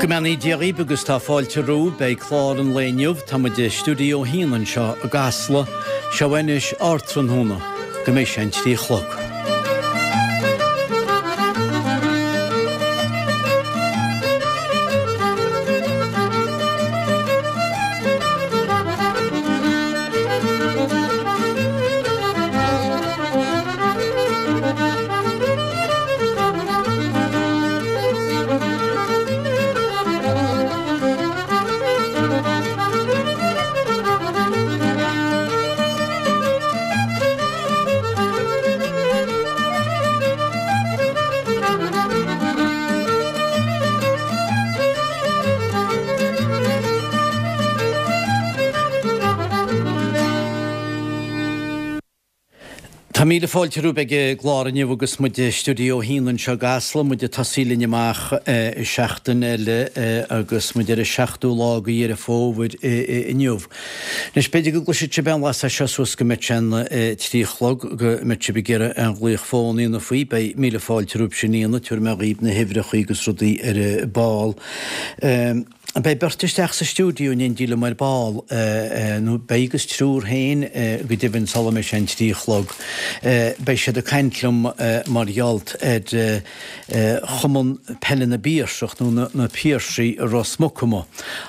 Go mbeannaí Dia dhaoibh agus tá fáilte romhaibh. Beidh clár an lae inniu, tá muid i Stiúideo 1 anseo i gCasla. Seo anois Ardtráthnóna, go mbeidh sé an 3 a chlog. Tá míle fáilte romhaibh ag an gclár inniu agus muid i Stiúideo 1 anseo i gCasla, muid ag tosaí linn amach seachtain eile agus muid ar an seachtú lá de Dheireadh Fómhair inniu. Anois, b'fhéidir go gcloisfidh sibh aon bhlas as seo suas go mbeidh sé an 3 a chlog, go mbeidh sibh ag iarraidh aon ghlaoch fóin a dhéanamh faoi, beidh míle fáilte romhaibh sin a dhéanamh, tabharfaidh mé dhaoibh na huimhreacha agus rudaí ar an ball. Beidh beirt isteach sa stiúideo in éindí liom ar ball, nó beidh agus triúr féin go deimhin sula mbeidh sé an 3 a chlog. Beidh siad ag caint liom mar gheall ar Chumann Peile na bPiarsach, nó na Piarsaigh i Ros Muc amuigh,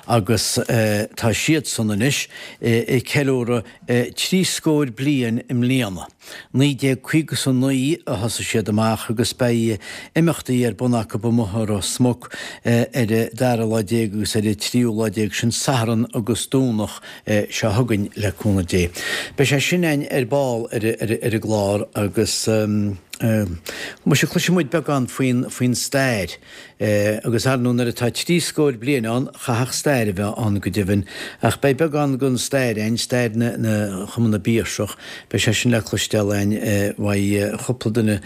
agus tá siadsan anois ag ceiliúradh 30 scór bliain i mbliana. 1959 a thosaigh siad amach agus beidh imeachtaí ar bun acu amuigh i Ros Muc ar an dara lá déag agus ar an tríú lá déag, sin Satharn agus Domhnach seo chugainn le cúnamh Dé. Beidh sé sin againn ar ball ar an gclár agus muise cloisfidh muid beagán faoin stair. Agus ar ndóigh nuair atá 30 scór bliain ann, chaithfeadh stair a bheith ann go deimhin. Ach beidh beagán den stair againn, stair na Chumann na bPiarsach, beidh sé sin le cloisteáil againn uaidh chúpla duine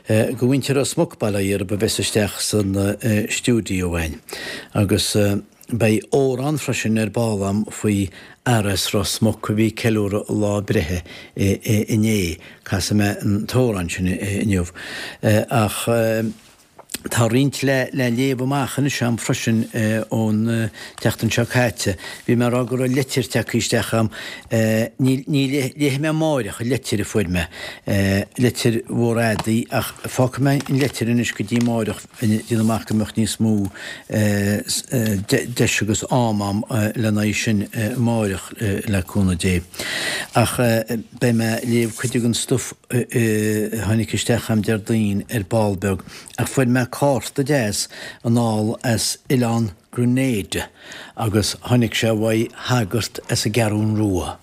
de mhuintir Ros Muc, bail ó Dhia orthu, a bheas isteach san stiúideo againn. Agus beidh amhrán freisin ar ball agam faoi fhear as Ros Muc a bhí ag ceiliúradh a lá breithe inné. Casfaidh mé an t-amhrán sin inniu. Ach. Tá roinnt le léamh amach anois agam freisin ón tseachtain seo caite. Bhí mé ag rá go raibh leitir tagtha isteach agam. Ní léifidh mé amáireach an leitir a fuair mé, leitir mhór fhada í, ach fágfaidh mé an leitir anois go dtí amáireach, déanaim amach go mbeadh níos mó deis agus am agam lena aghaidh sin amáireach, le cúnamh Dé. Ach beidh mé ag léamh cuid den stuif a tháinig isteach agam Déardaoin ar ball beag ach fuair mé cárta deas anall as oileán Grenada agus tháinig sé uaidh shagart as an gCeathrún Rua,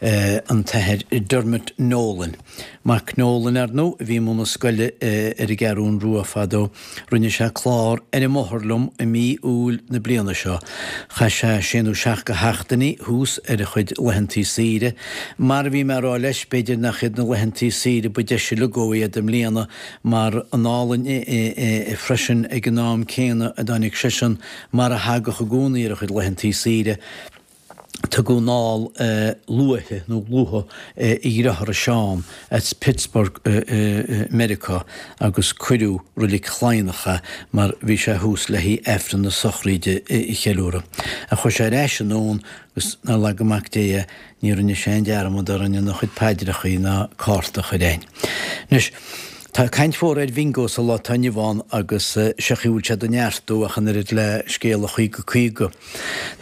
an tAthair Dermot Nolan. Mac Nolan, ar ndóigh, a bhí i mbun na scoile ar an gCeathrún Rua fadó. Rinne sé clár ar an mbóthar liom i mí Iúil na bliana seo. Chaith sé sé nó seacht de sheachtainí thuas ar a chuid laethantaí saoire. Mar a bhí mé a rá leis, b'fhéidir nach iad na laethantaí saoire ba deise uilig dhó iad i mbliana mar anall freisin ag an am céanna a dtáinig seisean mar a thagadh i gcónaí ar a chuid laethantaí saoire. Tugadh anall luaithe, nó luath, a dhearthára Seán as Pittsburgh i Meiriceá agus cuireadh Reilig Chladhnach é mar bhí sé thuas le haghaidh Aifreann na sochraíde a cheiliúradh. Ach chuaigh sé ar ais anonn agus nár laga Mac Dé é, ní rinne sé aon dearmad orainn ina chuid paidreachaí ná cárta a chur a'inn. Anois, tá caint mhór ar bhingo sa lá atá inniu ann agus sé an chaoi a bhfuil sé do neartú ach an oiread le scéala 50 50.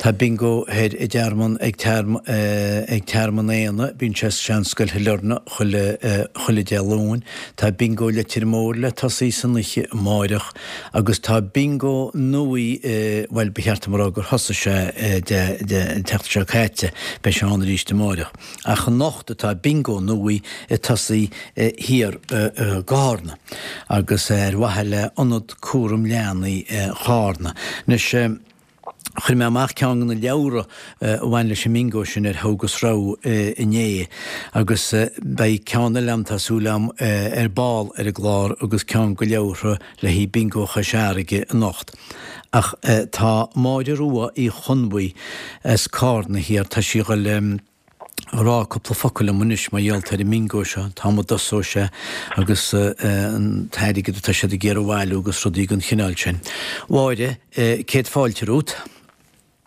Tá bingo thoir i dTearmann ag ag Tearmann Éanna, bíonn sé sa Seanscoil Shailearna chuile chuile Dé Luain. Tá bingo Leitir Móir le tosaí san oíche amáireach agus tá bingo nuaí bhuel ba cheart dom a rá gur thosaigh sé Dé Dé an tseachtain seo caite, beidh sé ann arís amáireach. Ach anocht atá bingo nuaí ag tosaí thiar i gCárna agus ar mhaithe le Ionad Cúram Leanaí Chárna. Anois. Chuir mé amach ceann de na leabhra a bhain leis an mbingo sin ar Thogh agus Rogha inné agus beidh ceann eile agam, tá súil agam, ar ball ar an gclár agus ceann de leabhartha le haghaidh Bingo Chois Fharraige anocht. Ach tá Máire Rua Uí Chonbhuí as Cárna thiar, tá sí ag dul. rá cúpla focal liom anois mar gheall ar an mbingo seo, an t-am a dtosóidh sé agus an t-airgead atá siad ag iarraidh a bhailiú agus rudaí den chineál sin. Mháire, céad fáilte romhat.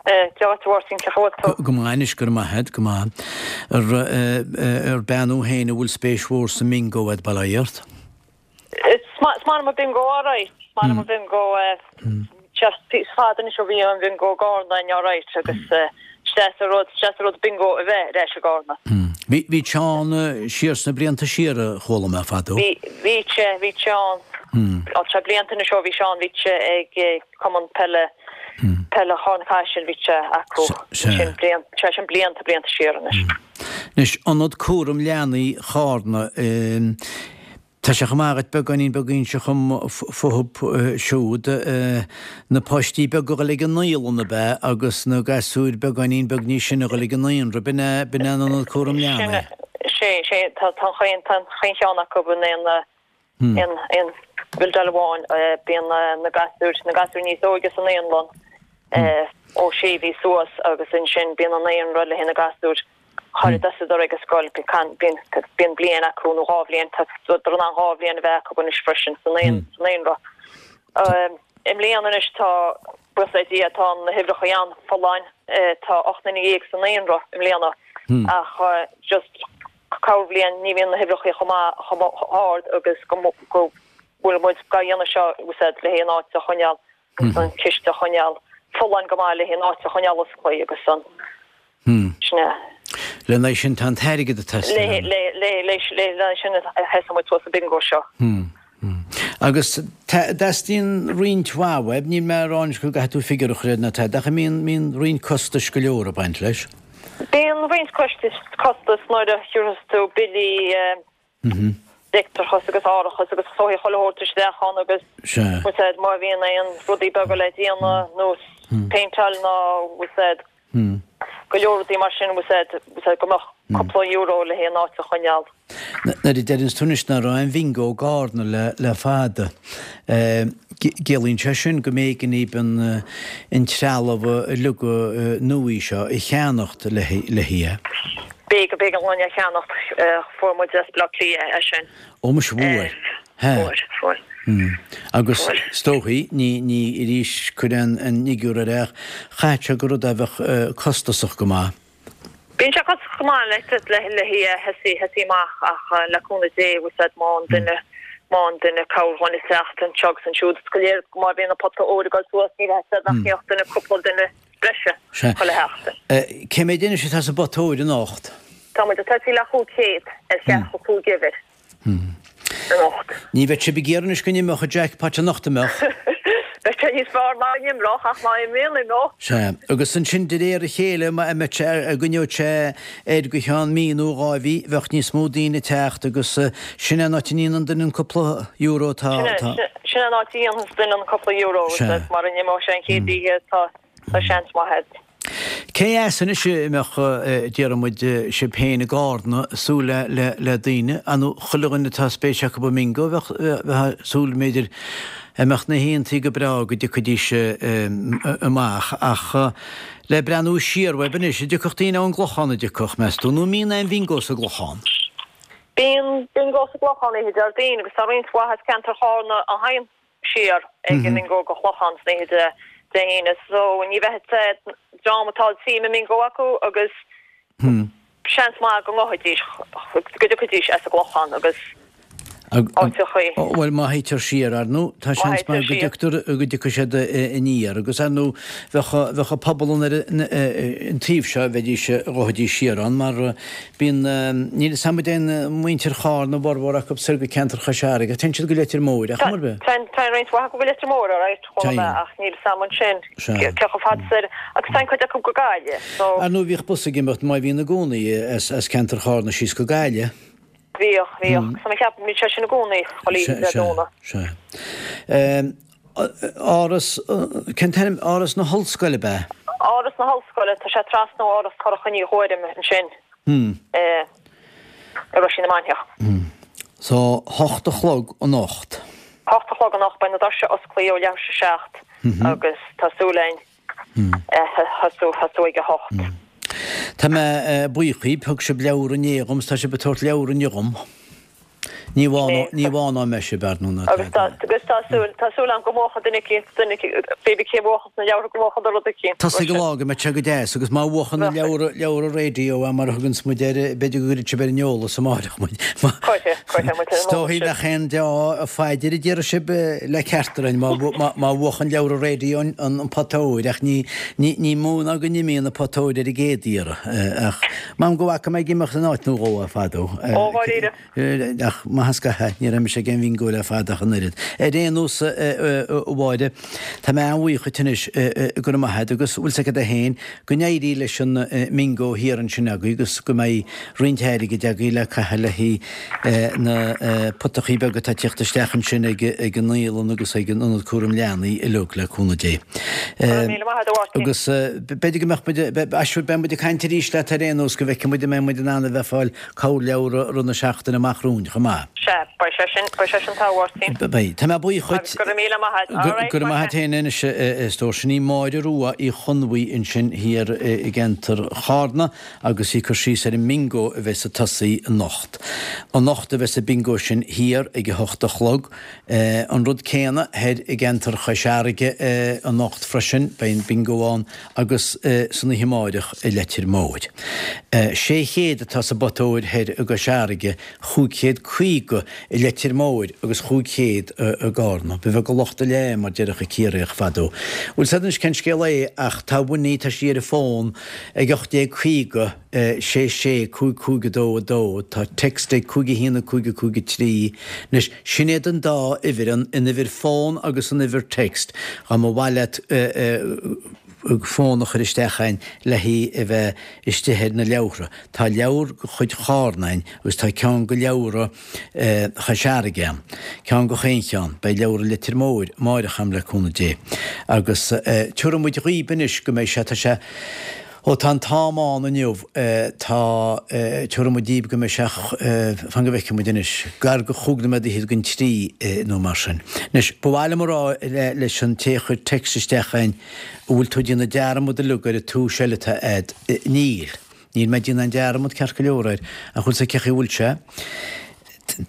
Dia dhuit a Mháirtín, cén chaoi a bhfuil tú? Go maith anois, go raibh maith agat, go maith. Ar bean thú féin a bhfuil spéis mhór sa mbingo agat, bail ó Dhia ort? Is maith liom an bingo alright, is maith liom an bingo, is fada anois ó bhí an bingo i gCarna againn alright agus is deas an rud, is deas an rud bingo a bheith ar ais i gCarna. Bhí, bhí sé ann siar sna blianta siar a chuala mé fadó. Bhí, bhí sé, bhí sé ann, tá sé blianta anois ó bhí sé ann, bhí sé ag Cumann Peile, Peile Charna Caisil, bhí sé acu, sin blianta, sé sin blianta, blianta siar anois. Anois, Ionad Cúram Leanaí Chárna, tá sé chomh maith agat beagáinín beag a inse dhom fúthub siúd, na páistí beaga a dhul ag an naíolann ab ea agus na gasúir beagáinín beag níos sine a dhul ag an naíonra, b'in é, b'in é an Ionad Cúram Leanaí? Sin, sin, tá, tá an chaon, tá an chaon cheann acu in aon, aon bhildeáil amháin, bíonn na gasúir, na gasúir níos óige sa naíonlann ó sé mhí suas agus ansin bíonn an naíonra le haghaidh na gasúir char dtosaíodar ag an scoil, bíonn bliain acu nó dhá bhliain, tá in ann dhá bhliain a bheith acu anois freisin sa naíonra. I mbliana anois tá, buíochas le Dia, tá na huimhreacha an-fholláin, tá 18 nduine sa naíonra i mbliana ach just corrbhliain ní bhíonn na huimhreacha chomh maith, chomh hard agus go bhfuil muid dhá dhéanamh seo úsáid le haghaidh an áit a choinneáil agus an ciste a choinneáil folláin go maith le haghaidh an áit a choinneáil osclaí agus an sin é. Lena aghaidh sin tá an t-airgead ag teastáil. Le le sin a thosaigh muid suas an bingo seo. Agus teastaíonn roinnt mhaith uaibh, níl mé ag rá anois go gcaithfidh tú figiúr a chur air ná tada, ach mbíonn roinnt costais go leor ag baint leis. Bíonn roinnt costas nuair a thiúrfas tú billí leictreachas agus árachas agus sóithí chuile shórt isteach ann agus úsáid má bhíonn aon rudaí beaga le déanamh nó péinteáil nó úsáid go leor rudaí mar sin úsáid go mbeadh cúpla euro le haghaidh an áit a choinneáil. Nuair a deireanns tú anois nach raibh aon bhingo i gCarna le fada, ciallaíonn sé sin go mb'éigean daoibh an trealamh uilig nua seo a cheannacht le haghaidh. B'éigean, b'éigean dúinn é a cheannacht, fuair muid as Baile Átha Cliath é sin. Ó muise fuair. Fuair, fuair. Agus is dóichí, ní, ní arís cuir an fhigiúr air ach chaithfeadh sé gur rud é a bheadh costasach go maith. Bíonn sé costasach go maith le le thosaí thosaí amach ach le cúnamh Dé úsáid má an duine má an duine cabhair dhúinn ag teacht anseo agus ansiúd is go léir má bhíonn an pota óir ag dul suas ní bheadh siad nach mbeadh duine cúpla duine breise chuile sheachtain. Cé mhéad anois atá sa bpota óir anocht? Tá muid ag tosaí le 500 ar cheathracha cúig uimhir. Anocht. Ní bheadh sibh ag iarraidh anois go n-imeodh an jackpot anocht, an mbeadh? Bheadh sé níos fearr má n-imreodh ach má imríonn, imeoidh. Sea. Agus ansin de réir a chéile, má mbeadh sé, a gcoinneodh sé air go cheann mí nó dhá mhí, bheadh níos mó daoine ag teacht agus sin é an áit a ndéanann duine an cúpla euro atá, atá. Sin é an áit a dhéanfas duine an cúpla euro, Sea. Mara n-imeodh sé an chéad oíche, tá, tá seans maith agat. Cé as anois a mbeadh, déarfaidh muid, sibh féin i gCarna ag súil le daoine, ar ndóigh chuile dhuine atá spéis acu i mbingo, bheadh ag súil b'fhéidir a mbeadh na hoícheantaí go breá go dtiocfaidís amach ach le breathnú siar uaibh anois, an dtiocfadh daoine ón gClochán an dtiocfadh, meas tú, nó an mbíonn aon bhingo sa gClochán? Bíonn bingo sa gClochán oíche Déardaoin agus tá roinnt mhaith as ceantar Chárna a thagann. siar ag an mbingo go Clochán san oíche Dé hAoine so ní bheidh an dream atá suim i mbingo acu agus seans maith go ngabhfaidís, go dtiocfaidís as an gClochán agus áiteachaí. Bhuel má théitear siar, ar ndóigh, tá seans maith go dtioctar, go dtiocfaidh siad aniar agus ar ndóigh bheadh, bheadh an pobal an ar an taobh seo, bheidís, ghabhfaidís siar ann mar Bíonn, níl 'fhios a'm an dtéann muintir Chárna, a bhformhór acu soir go ceantar Chois Fharraige, téann siad go Leitir Móir, ach mar bith. Téann, téann roinnt mhaith acu go Leitir Móir, alright, chuala mé, ach níl 'fhios a'm ansin cé chomh fada soir, agus téann cuid acu go Gaillimh, so. Ar ndóigh bhíodh bus ag imeacht, má bhíonn i gcónaí, as ceantar Chárna síos go Gaillimh. Bhíodh, bhíodh, so mé cheap, bíonn sé sin i gcónaí, chuile oíche Dé Domhnaigh. Sea, sea. Áras, cén t-ainm, Áras na hOllscoile ab ea? Áras na hOllscoile, tá sé trasna ó Áras Shorcha Ní Ghuairim ansin i Roisín na Mainiach. So, hocht a chlog anocht. Hocht a chlog anocht, beidh na doirse osclaithe ó leathuair tar éis a seacht agus tá súil againn thosú, thosú ag a hocht. Tá mé buíoch dhíbh, thug sibh leabhar inné dhom 's tá sibh ag tabhairt leabhar inniu dhom. Ní bhánóidh mé sibh, ar ndóigh, ná Agus tá, agus tá súil, tá súil agam go mbuachfaidh duine eicínt, duine eicínt, pé bith cé bhuachann na leabhartha go mbuachfaidh rud eicínt. Tá ag an lá go mbeidh sé go deas agus má bhuachann na leabhra, leabhra raidió é mar a thuganns muid air, b'fhéidir go gcuirfidh sibh ar an eolas amáireach muid. Cuirfidh, cuirfidh muid ar an Is dóichí eolas sibh. nach aon deá-phaidir a déarfaidh sibh le ceart orainn má, má, má bhuachann leabhra raidió an, an pota óir ach ní, ní, ní mó ná go n-imíonn an pota óir ar an gcéad iarraidh. Ach m'anam go bhfaca mé ag imeacht in áit nó dhó é fadó. Ó, dháiríre. Ach maith an scaitheamh, ní raibh mise ag aon bhingó le fada ach an oiread. Ar aon nós, a Mháire, tá mé an-bhuíoch dhuit anois, go raibh maith agat, agus bhfuil 's agat féin, go n-éirí leis an mbingó thiar ansin agaibh agus go mbeidh roinnt airgid agaibh le caitheamh le haghaidh na potachaí beaga atá ag tíocht isteach ansin ag an naíolann agus ag an Ionad Cúram Leanaí uilig, le cúnamh Dé. Go raibh míle maith agat, a Mháirtín. Agus b'fhéidir go mbeadh muid, aisfir, beidh muid ag caint arís leat ar aon nós go bhfeicfidh muid an mbeidh muid in ann a bheith ag fáil corrleabhar i rith na seachtaine amach romhainn chomh maith. Sea, beidh sé sin, beidh sé sin togha, a Mháirtín. Beidh. Tá mé buíoch dhuit. Agus go raibh míle maith agat. All right, Go raibh maith agat féin anois, a stór. Sin í Máire Rua Uí Chonbhuí ansin thiar i gceantar Chárna agus í ag cur síos ar an mbingo a bheas ag tosaí anocht. Anocht a bheas an bingo sin thiar ag a hocht a chlog. An rud céanna thoir i gceantar Chois Fharraige anocht freisin, beidh an bingo ann agus san oíche amáireach i Leitir Móir. 600 atá sa bpota óir thoir i gCois Fharraige, 550 i Leitir Móir agus 500 i gCárna. Ba bheag an locht a leá, mar déarfadh an Ciarraíoch fadó. Bhfuil 's agat anois cén scéal é ach tá Winnie, tá sí ar an bhfón ag 1850, 6 6 5 5 2 2, tá text ag 5 1 5 5 3, anois sin iad an dá uimhir, an uimhir fón agus an uimhir text, dá mba mhaith leat fón a chur isteach a'inn le haghaidh a bheith istigh ar na leabhartha. Tá leabhar de chuid Chárna a'inn agus tá ceann de leabhra Chois Fharraige a'm. Ceann de chaon cheann. Beidh leabhra Leitir Móir amáireach a'm le cúnamh Dé. Agus tiúrfaidh muid dhaoib anois go mbeidh sé, tá sé, Ó tá an t-am ann inniu, tá, tiúrfaidh muid daoib go mbeidh sé, fan go bhfeicfidh muid anois, gar go chúig nóiméad fhichead don trí nó mar sin. Anois, ba mhaith liom a rá leis an té a chuir text isteach a'inn, an bhfuil tú ag déanamh dearmad uilig ar an tomhas eile atá a'd? Níl. Níl mé ag déanamh aon dearmad ceart go leor air, ach bhfuil 's a'd cé chaoi a bhfuil sé?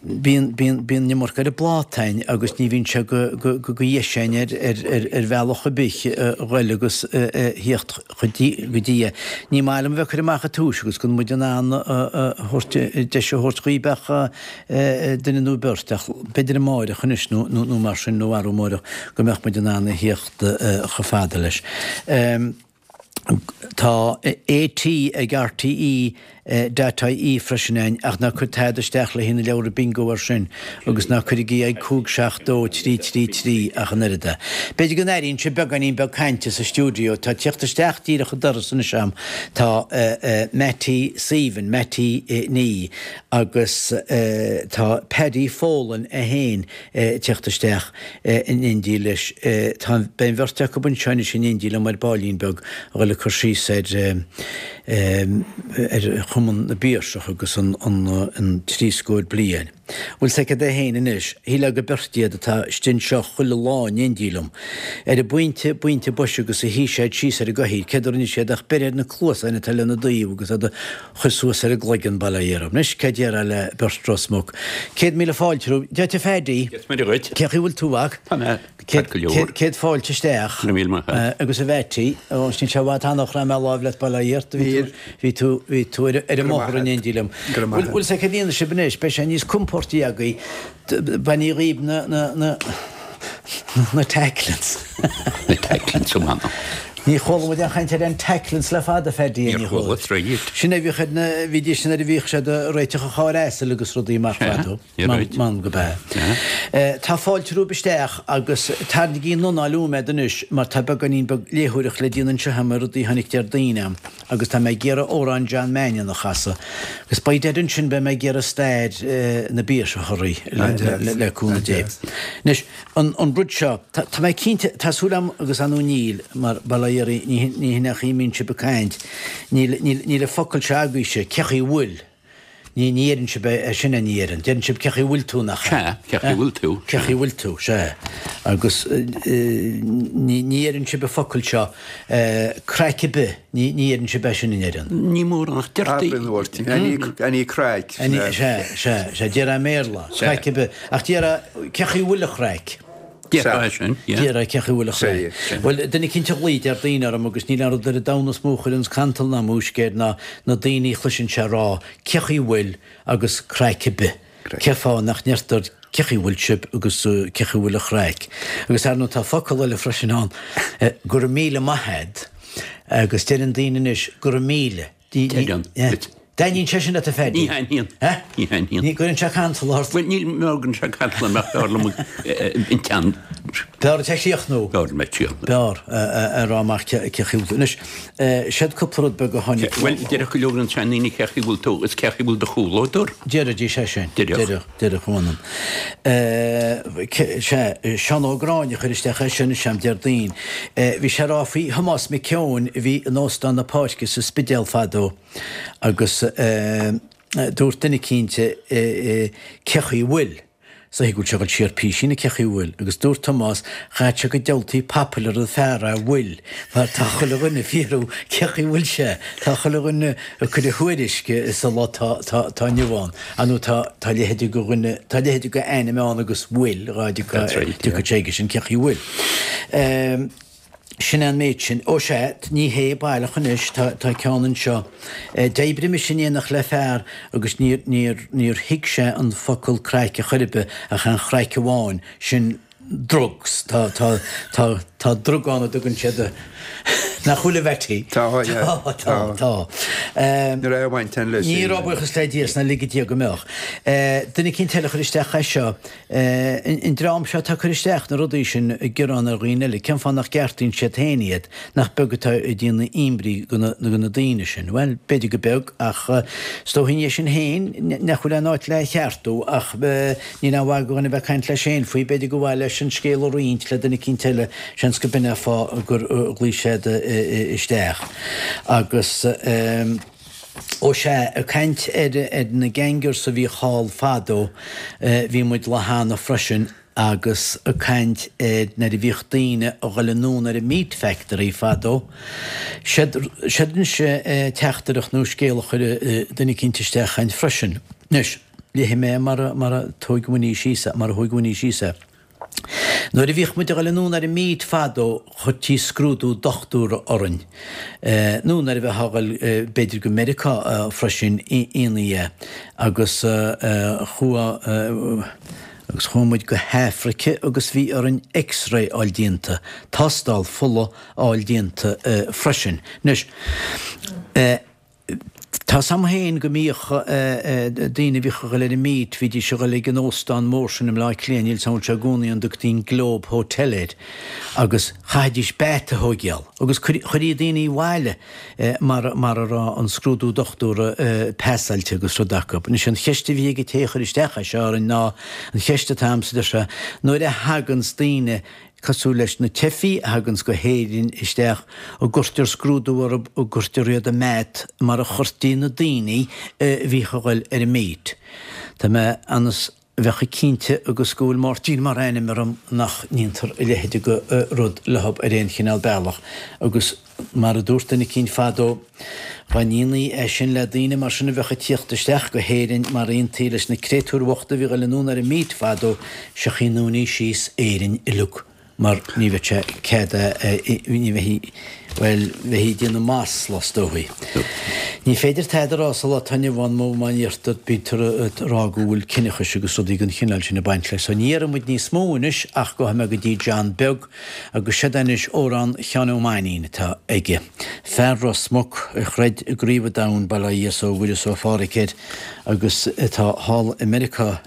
Bíonn, bíonn, bíonn an iomarca ar an bpláta a'inn agus ní bhíonn sé go, go, go, go dheis a'inn ar, ar, ar, ar bhealach ar bith a ghoil agus a, a thíocht go dtí, go dtí é. Ní maith liom a bheith ag cur amach an tomhais agus gan muid in ann a, a, thabhairt, deis a thabhairt dhaoib ach duine nó beirt ach b'fhéidir amáireach anois nó, nó, nó mar sin nó arú amáireach go mbeadh muid in ann a thíocht chomh fada leis. Tá AT ag RTE dot IE freisin a'inn ach ná cuir tada isteach le haghaidh na leabhra bingo air sin agus ná cuirigí ag 5 7 2 3 3 3 ach an oiread é. B'fhéidir go n-airíonn sibh beagáinín beag cainte sa stiúideo. Tá tíocht isteach díreach an doras anois a'm. Tá Mattie Suibhne, Mattie Ní agus tá Paddy Folan é féin tíocht isteach in éindí leis. Tá, beidh an bheirt acu anseo anois in éindí liom ar baillín beag a dhul ag cur síos ar ar Chumann na bPiarsach agus an an trí scór bliain. Bhfuil 's agat é féin anois, shílfeá gur beirt iad atá istigh anseo chuile lá in éindí liom. Ar an bpointe, bpointe boise agus a shuigh siad síos ar an gcathaoir, céard a rinne siad ach breith ar na cluasáin atá lena dtaobh agus iad a chur suas ar a gcloigeann, bail ó Dhia orthu. Anois, céard déarfá le beirt Ros Muc? 100,000 fáilte romhaibh. Dia duit a Phaddy. Dia is Muire dhuit. Cén chaoi a bhfuil tú, a mhac? Tá mé ceart go leor. Céad fáilte isteach. Go raibh míle maith agat. Agus a Mhattie, ó, níl sé i bhfad cheana ó chraith mé láimh leat, bail ó Dhia ort. Bhí tú, bhí tú, bhí tú ar an mbóthar in éindí liom. Go raibh maith agat. Bhfuil 's agat cad a dhéanfaidh sibh anois, beidh sé níos compóirtí agaibh. Bainigí dhíbh na, na, na, na tacklins. Na tacklins, ó m'anam. Ní chuala muid aon chaint ar an tacklins le fada, Phaddy, Níor chuala, troid. Sin é a bhíodh ar na, bhídís sin nuair a bhíodh siad ag réiteach an chairr asail agus rudaí mar fadó. M'anam go b'ea. Tá fáilte romhaibh isteach agus tarraingígí an anáil uaim anois mar tá beagáinín beag léitheoireacht le déanamh anseo agam ar rudaí a tháinig Déardaoin a'm. Agus tá mé ag iarraidh amhrán John Mannion a chasadh. Agus by dad ansin beidh mé ag iarraidh stair na bPiarsach a rith, le cúnamh Dé. Anois, an rud seo, tá mé cinnte, tá súil agam agus ar ndóigh níl, mar bail ó Dhia oraibh, ní hin é an chaoi a mbíonn sibh ag caint, níl, níl, níl an focal seo agaibhse, cé chaoi a bhfuil? Ní, ní dheireann sibh é sin, ní dheireann. Deireann sibh cé chaoi bhfuil tú, nach ea? Sea, cé chaoi bhfuil tú. Cé chaoi bhfuil tú, sea. Agus ní, ní dheireann sibh an focal seo, craic ar bith, ní, ní dheireann sibh é sin, an ndeireann? Ní mórán ach deirtí. Abair an uair, any, any craic. Any, sea, sea, sea, déarfá i mBéarla, craic ar bith. Ach déarfá, cé chaoi bhfuil an chraic? Déarfá é sin, yeah. Déarfá cé chaoi bhfuil an chraic. Bhuel, duine eicínt a ghlaoigh Déardaoin orm agus níl aon rud ar an domhan is mó a chuireanns cantal ná múisc air ná na daoine a chloiseann sé ag rá cé chaoi bhfuil agus craic ar bith. Cén fáth nach ndeirtear cé chaoi bhfuil sibh agus cé chaoi bhfuil an chraic. Agus ar ndóigh tá focal eile freisin ann, go raibh míle maith a'd agus deireann daoine anois go raibh míle. Deireann. Dtaitníonn sé sin leat a Phaddy? Ní thaitníonn. Ní thaitníonn. Ní gcuireann sé cantal ort? Bhuel, ní gcuireann sé cantal orm ach b'fhearr liom an teann. B'fhearr duit a chríochnú. B'fhearr liom a chríochnú. B'fhearr a rá amach cé chaoi bhfuil tú. Anois, siod cúpla rud beag a tháinig. Bhuel, déarfadh go leor de na seandaoine cé chaoi bhfuil tú is cé chaoi bhfuil do chomhluadar. Déarfaidís é sin. Déarfadh. Déarfadh, a mh'anam. Sea, Seán Ó Gráinne a chuir isteach é sin, is ea, Déardaoin. Bhí sé ag rá faoi Thomás Mac Eoin a bhí in Óstán na Páirce sa Spidéal fadó agus dúirt duine eicínt cé chaoi bhfuil? Is dóichí go bhfuil sé ag dul siar písín cé chaoi bhfuil? Agus dúirt Tomás, chaithfeadh sé go diabhaltaí papil ar an fear a bhfuil mar tá chuile dhuine ag fiafraí cé chaoi bhfuil sé, tá chuile dhuine ag cur a thuairisc sa lá tá inniu ann. Ar ndóigh tá tá leithéide de dhuine, tá leithéide de ainm ann agus bhfuil, dhá dtiocfadh sé aige sin, cé chaoi bhfuil. Sin é an méid sin. Ó sea, ní hé baileach anois, tá tá ceann anseo. D'oibrigh mise in éineacht le fear agus níor níor níor thuig sé an focal craic a chor ar bith ach an chraic amháin, sin drugs. Tá, tá, tá, tá drug ann a dtugann siad a, nach bhfuil a Bheití? Tá, yeah. Tá, tá, tá. Ní raibh baint ann leis. Ní raibh buíochas le Dia is ná lige Dia go mbeadh. Duine eicínt eile a chuir isteach é seo. An dream seo atá ag cur isteach na rudaí sin ag gearán ar dhaoine eile, cén fáth nach gceartaíonn siad féin iad? Nach beag atá ag déanamh imní go na daoine sin? Bhuel, b'fhéidir go beag ach is dóichí é sin féin nach bhfuil aon áit le cheartú ach Níl aon mhaith do dhuine bheith ag caint leis féin faoi, b'fhéidir gur mhaith leis an scéal a roinnt le duine eicínt eile, seans go b'in é an fáth gur ghlaoigh siad isteach. Agus, ó sea, ag caint ar na gangers a bhíodh thall fadó, bhí muid lá cheana freisin agus ag caint ar nuair a bhíodh daoine a dhul anonn ar an meat factory fadó, siod anois teachtaireacht nó scéal a chuir duine eicínt isteach againn freisin. Anois. Léifidh mé mar a, mar a thóig Winnie síos é, mar a thóig Winnie síos é. Nuair a bhíodh muid a dhul anonn ar an meat fadó chuirtí scrúdú dochtúra orainn. Nó nuair a bheifeá a dhul b'fhéidir go Meiriceá freisin ionfaí é. Agus chuaigh, agus chuaigh muid go hAfraice agus bhí orainn X-ray a fháil déanta, tástáil fola a fháil déanta freisin. Anois, Tá's a'm féin go mbíodh daoine a bhíodh a dhul ar an meat, bhídís a dhul ag an óstán mór sin i mBleá Cliath, níl 's a'm an bhfuil sé i gcónaí ann, dtugtaí an Globe Hotel air, agus chaithfidís beat a thóigeáil agus chuirí daoine abhaile mar mar a raibh an scrúdú dochtúra pasáilte agus rud acu. Anois an cheist a bhí ag an té a chuir isteach é seo orainn ná an cheist atá a'msa, deir sé, nuair a thaganns daoine cosúil leis na teifigh a thaganns go hÉirinn isteach, an gcuirtear scrúdú orthu, an gcuirtear iad i mbeat mar a chuirtí na daoine a bhíodh a dhul ar an meat. Tá mé ionas bheadh cinnte agus go bhfuil Máirtín mar ainm orm nach ndéantar a leithéid de rud leothab ar aon chineál bealach agus Mar a dúirt duine eicínt fadó, dhá ndéanfaí é sin le daoine mar sin a bheadh ag tíocht isteach go hÉirinn mar a dhéantaí leis na créatúir bhochta a bhí ag dul anonn ar an meat fadó, seo chaoi a ndúnfaí síos Éirinn uileag mar ní bheadh sé cead ní bheifí, bhuel, bheifí ag déanamh masla is dóichí. Ní féidir tada a rá sa lá atá inniu ann má má deirtear, bítear ag rá go bhfuil ciníochas agus rudaí den chineál sin ag baint leis. So ní dhéarfaidh muid níos mó anois ach gabhfaidh mé go dtí John Beag Agus seod é anois amhrán Sheáin Ó Mainnín atá aige. Fear Ros Muc a chreid i gCraobh an Domhain, bail ó Dhia 's ó Mhuire 's ó Phádhraic air, agus atá thall i Meiriceá,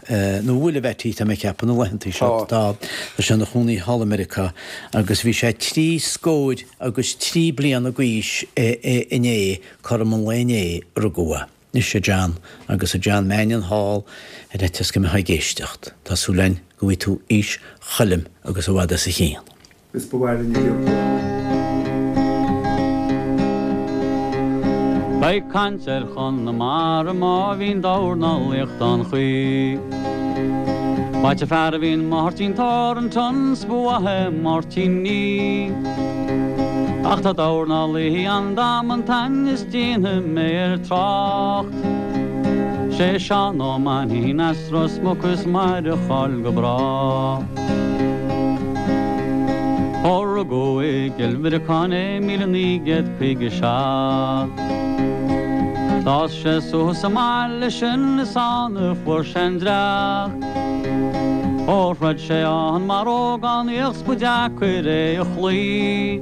nó bhfuil, a Bheaití, tá mé ag ceapadh, na laethantaí seo, tá, tá sé ina chónaí thall i Meiriceá, agus bhí sé trí scóir agus trí bliana d'aois inné, cothrom an lae inné a rugadh é. Anois a John, agus a John Mannion thall ar fhaitíos go mbeifeá ag éisteacht, tá súil againn go bhfaighidh tú aois Choilm agus i bhfad as a chionn. Is ba mhaith linn a gcion. Beidh caint ar Chonamara má bhíonn dornálaíocht an chaoi. B'ait an fear a bhíonn Máirtín Thornton 's ba mhaith é Máirtín Nee. Ach tá dornálaí ann damanta is déanfaidh mé air trácht. 'Sé Seán Ó Mainnín as Ros Muc is mair a cháil go bráth. Ó rugadh i gCill Mhuireacáin é 1957. D'fhás sé suas sa mbaile sin is ann a fuair sé an dreach. Ó throid sé ann mar ógánaíoch 's ba deacair é a chloí.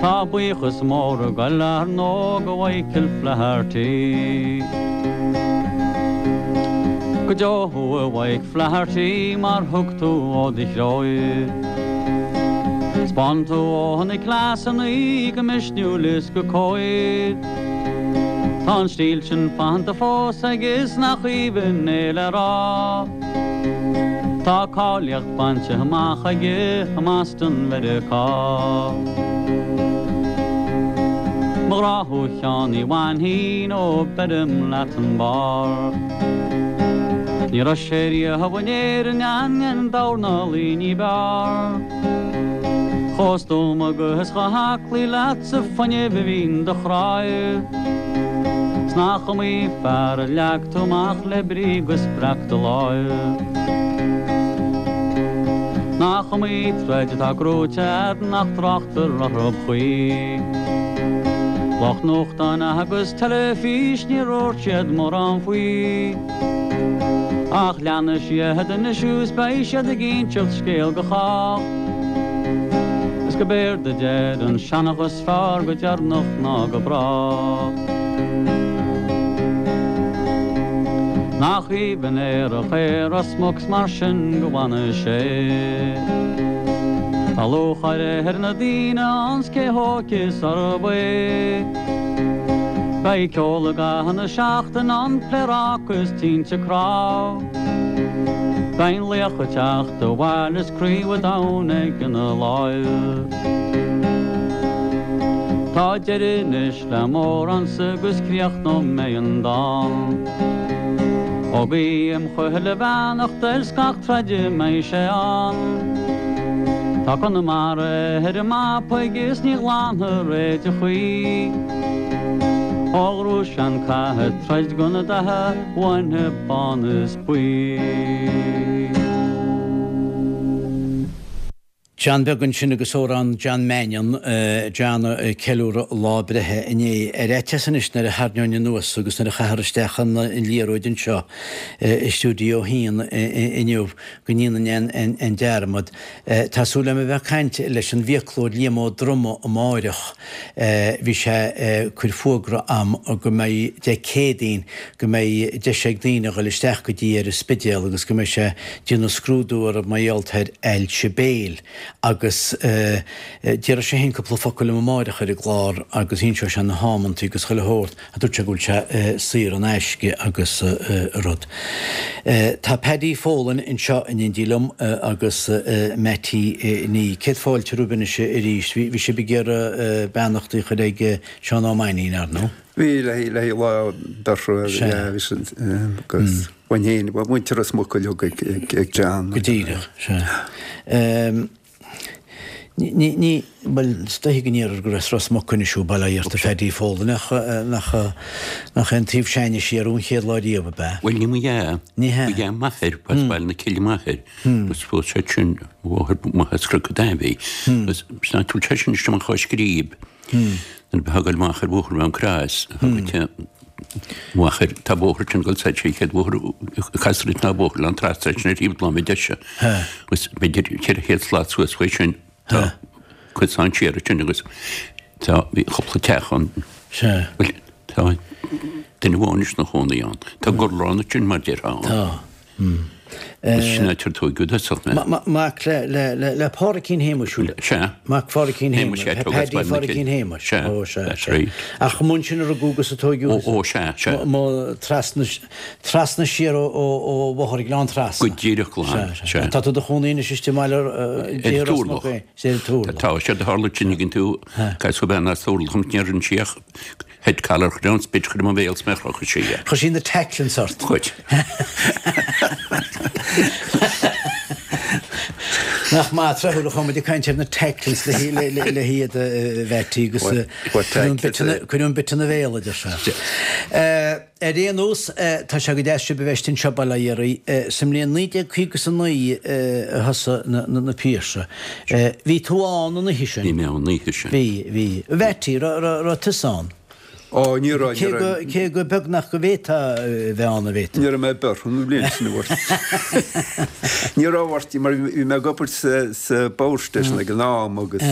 Tá buíochas mór ag goil ar ndóigh go Mhichael Flaherty. Go deo thú a Mhaidhc Flaherty mar thug tú ó do chroí. 'Spáin tú ó na cleasannaí go misniúil is go cóir. Tá an stíl sin fanta fós aige is nach aoibhinn é le rá. Tá cáilíocht bainte amach aige i mBoston Mheiriceá. Mo ghrá thú a Sheáin Uí Mhainnín ó beirim leat an barr. Ní raibh sé riamh in Éirinn aon dornálaí ní b'fhearr. Chomh stuama agus chomh haclaí leat sa fuinneamh a bhíonn do chroí. 'S nach iomaí fear a leag tú amach le brí go spreag do láimh. Nach iomaí troid atá gnóite a'd nach dtráchtar orthu choíche. Lucht nuachtáin agus teilifís ní dúirt siad mórán faoi. Ach leanfaidh siad anois is beidh siad ag inseacht scéal go chách. Is go b'éard a deir an seanchas fearr go deireanach ná go bráth. Nach aoibhinn aerach é Ros Muc 's mar sin go bhfana sé. Tá lúcháir ar na daoine ann 's cé hóige is arb é. Beidh ceol i gcaitheamh na seachtaine ann, pléaráca is tinte cnámh. Beidh an laoch ag teacht abhaile is craobh an domhain aige ina láimh. Tá deireadh anois le m'amhránsa agus críochnóidh mé an dán. Ó guím chuile bheannacht air 's gach troid a mbeidh sé ann. Tá Conamara ar an mapa aige is ní ghlanfar é de choíche. Ó ghnóthaigh sé an cath ag troid do na datha uainne bán is buí. John beag ansin agus amhrán John Mannion, John ag ceiliúradh a lá breithe inné. Ar fhaitíos anois nuair a tharraingeoinn anuas agus nuair a chaithfear isteach an liathróid anseo i Stiúideo a hAon inniu go ndéanfainn an dearmad. Tá súil agam a bheith ag caint leis an bhfiaclóir Liam Ó Droma amáireach. Bhí sé ag cur fuagra a'm go mbeidh Dé Céadaoin go mbeidh deis ag daoine a dhul isteach go dtí ar an Spidéal agus go mbeidh sé déanamh scrúdú orthu mar gheall ar ailse béil agus déarfaidh sé féin cúpla focal liom amáireach ar an gclár agus inseoidh sé na hamantaí agus chuile shórt a dúirt sé go bhfuil sé saor in aisce agus rud. Tá Paddy Folan anseo in éindí liom agus Mattie Ní. Céad fáilte romhaibh anois arís. Bhí sibh ag iarraidh beannachtaí a chur ag Seán Ó Mainnín, ar ndóigh? Bhí, le haghaidh lá dorcha, bhí sin agus bhain féin, muintir Ros Muc uilig ag John. Go díreach, sea. Ní, ní, bhuel, is dóiche go ndéarfar gur as Ros Muc anois thú, bail ó Dhia ort a Phaddy Folan, ach nach, nach é an taobh s'againne siar thú an chéad lá riamh, ab ea? Bhuel, ní mo dhea. Ní hea. Ba dhea m'athair, b'as Baile na Cille m'athair, agus phós sé sin mháthair maith as Cnoc an Daimh. Agus sin áit a bhfuil sé sin istigh amach ó Scríb. Nuair a bheifeá ag goil amach ar bhóthar Mhám Crois, amach ar, tá bóthar sin ag dul soir, sé an chéad bhóthar a castar ort ná bóthar Oileán Trasna sin ar thaobh na láimhe deise. Agus b'fhéidir 400 slat suas faoi sin, tá cosán siar ansin agus tá, bhí cúpla teach ann. Bhuel, tá duine amháin anois ina chónaí ann. Tá gurlán ansin mar déarfá ann. Tá. Sin áit ar tóigeadh i dtosach mé. Mac le Pádraicín Shéamuis, bhfuil? Sea. Mac Phádraicín Shéamuis, Paddy Phádraicín Shéamuis. Sea, Ó, sea, that's sea. right. Ach amuigh ansin a rugadh agus a tóigeadh. Ó, ó, sea, sea. Mo, trasna, trasna siar ó, ó, ó Bhóthar Ghleann Trasna. Go díreach glan, Sea, sea. sea. Tá tú i do chónaí anois istigh i mBaile Ar Ros Muc Turlach. é, sea, ar Turlach. Tá, séard a tharla sin ag an tú, casadh bean as Turlach an níor fhan sí ach Head collar chuir an spit chuir mo bhéal 's mé chrochadh sí é. Chuir sí na tacklings ort. Chuir. Nach maith tráthúil a chuaigh muid ag caint ar na tacklings le hiad a Mheaití agus cuireadh an bit ina bhéal a deir sé. Ar aon nós, tá sé go deas sibh a bheith anseo bail ó Dhia oraibh. Sa mbliain 1959 a thosaigh na Piarsaigh. Bhí tú ann an oíche sin? Bhí mé ann an oíche sin. Bhí, bhí. A Mheaití, raibh tusa ann? Ó, ní raibh, ní raibh. Cé go beagnach go bhféadfá a bheith ann, a bhféadfá? Ní raibh mé beirthe an bhliain sin, a Mháirtín. Ní raibh, a Mháirtín, mar bhí mé ag obair sa Power Station ag an am agus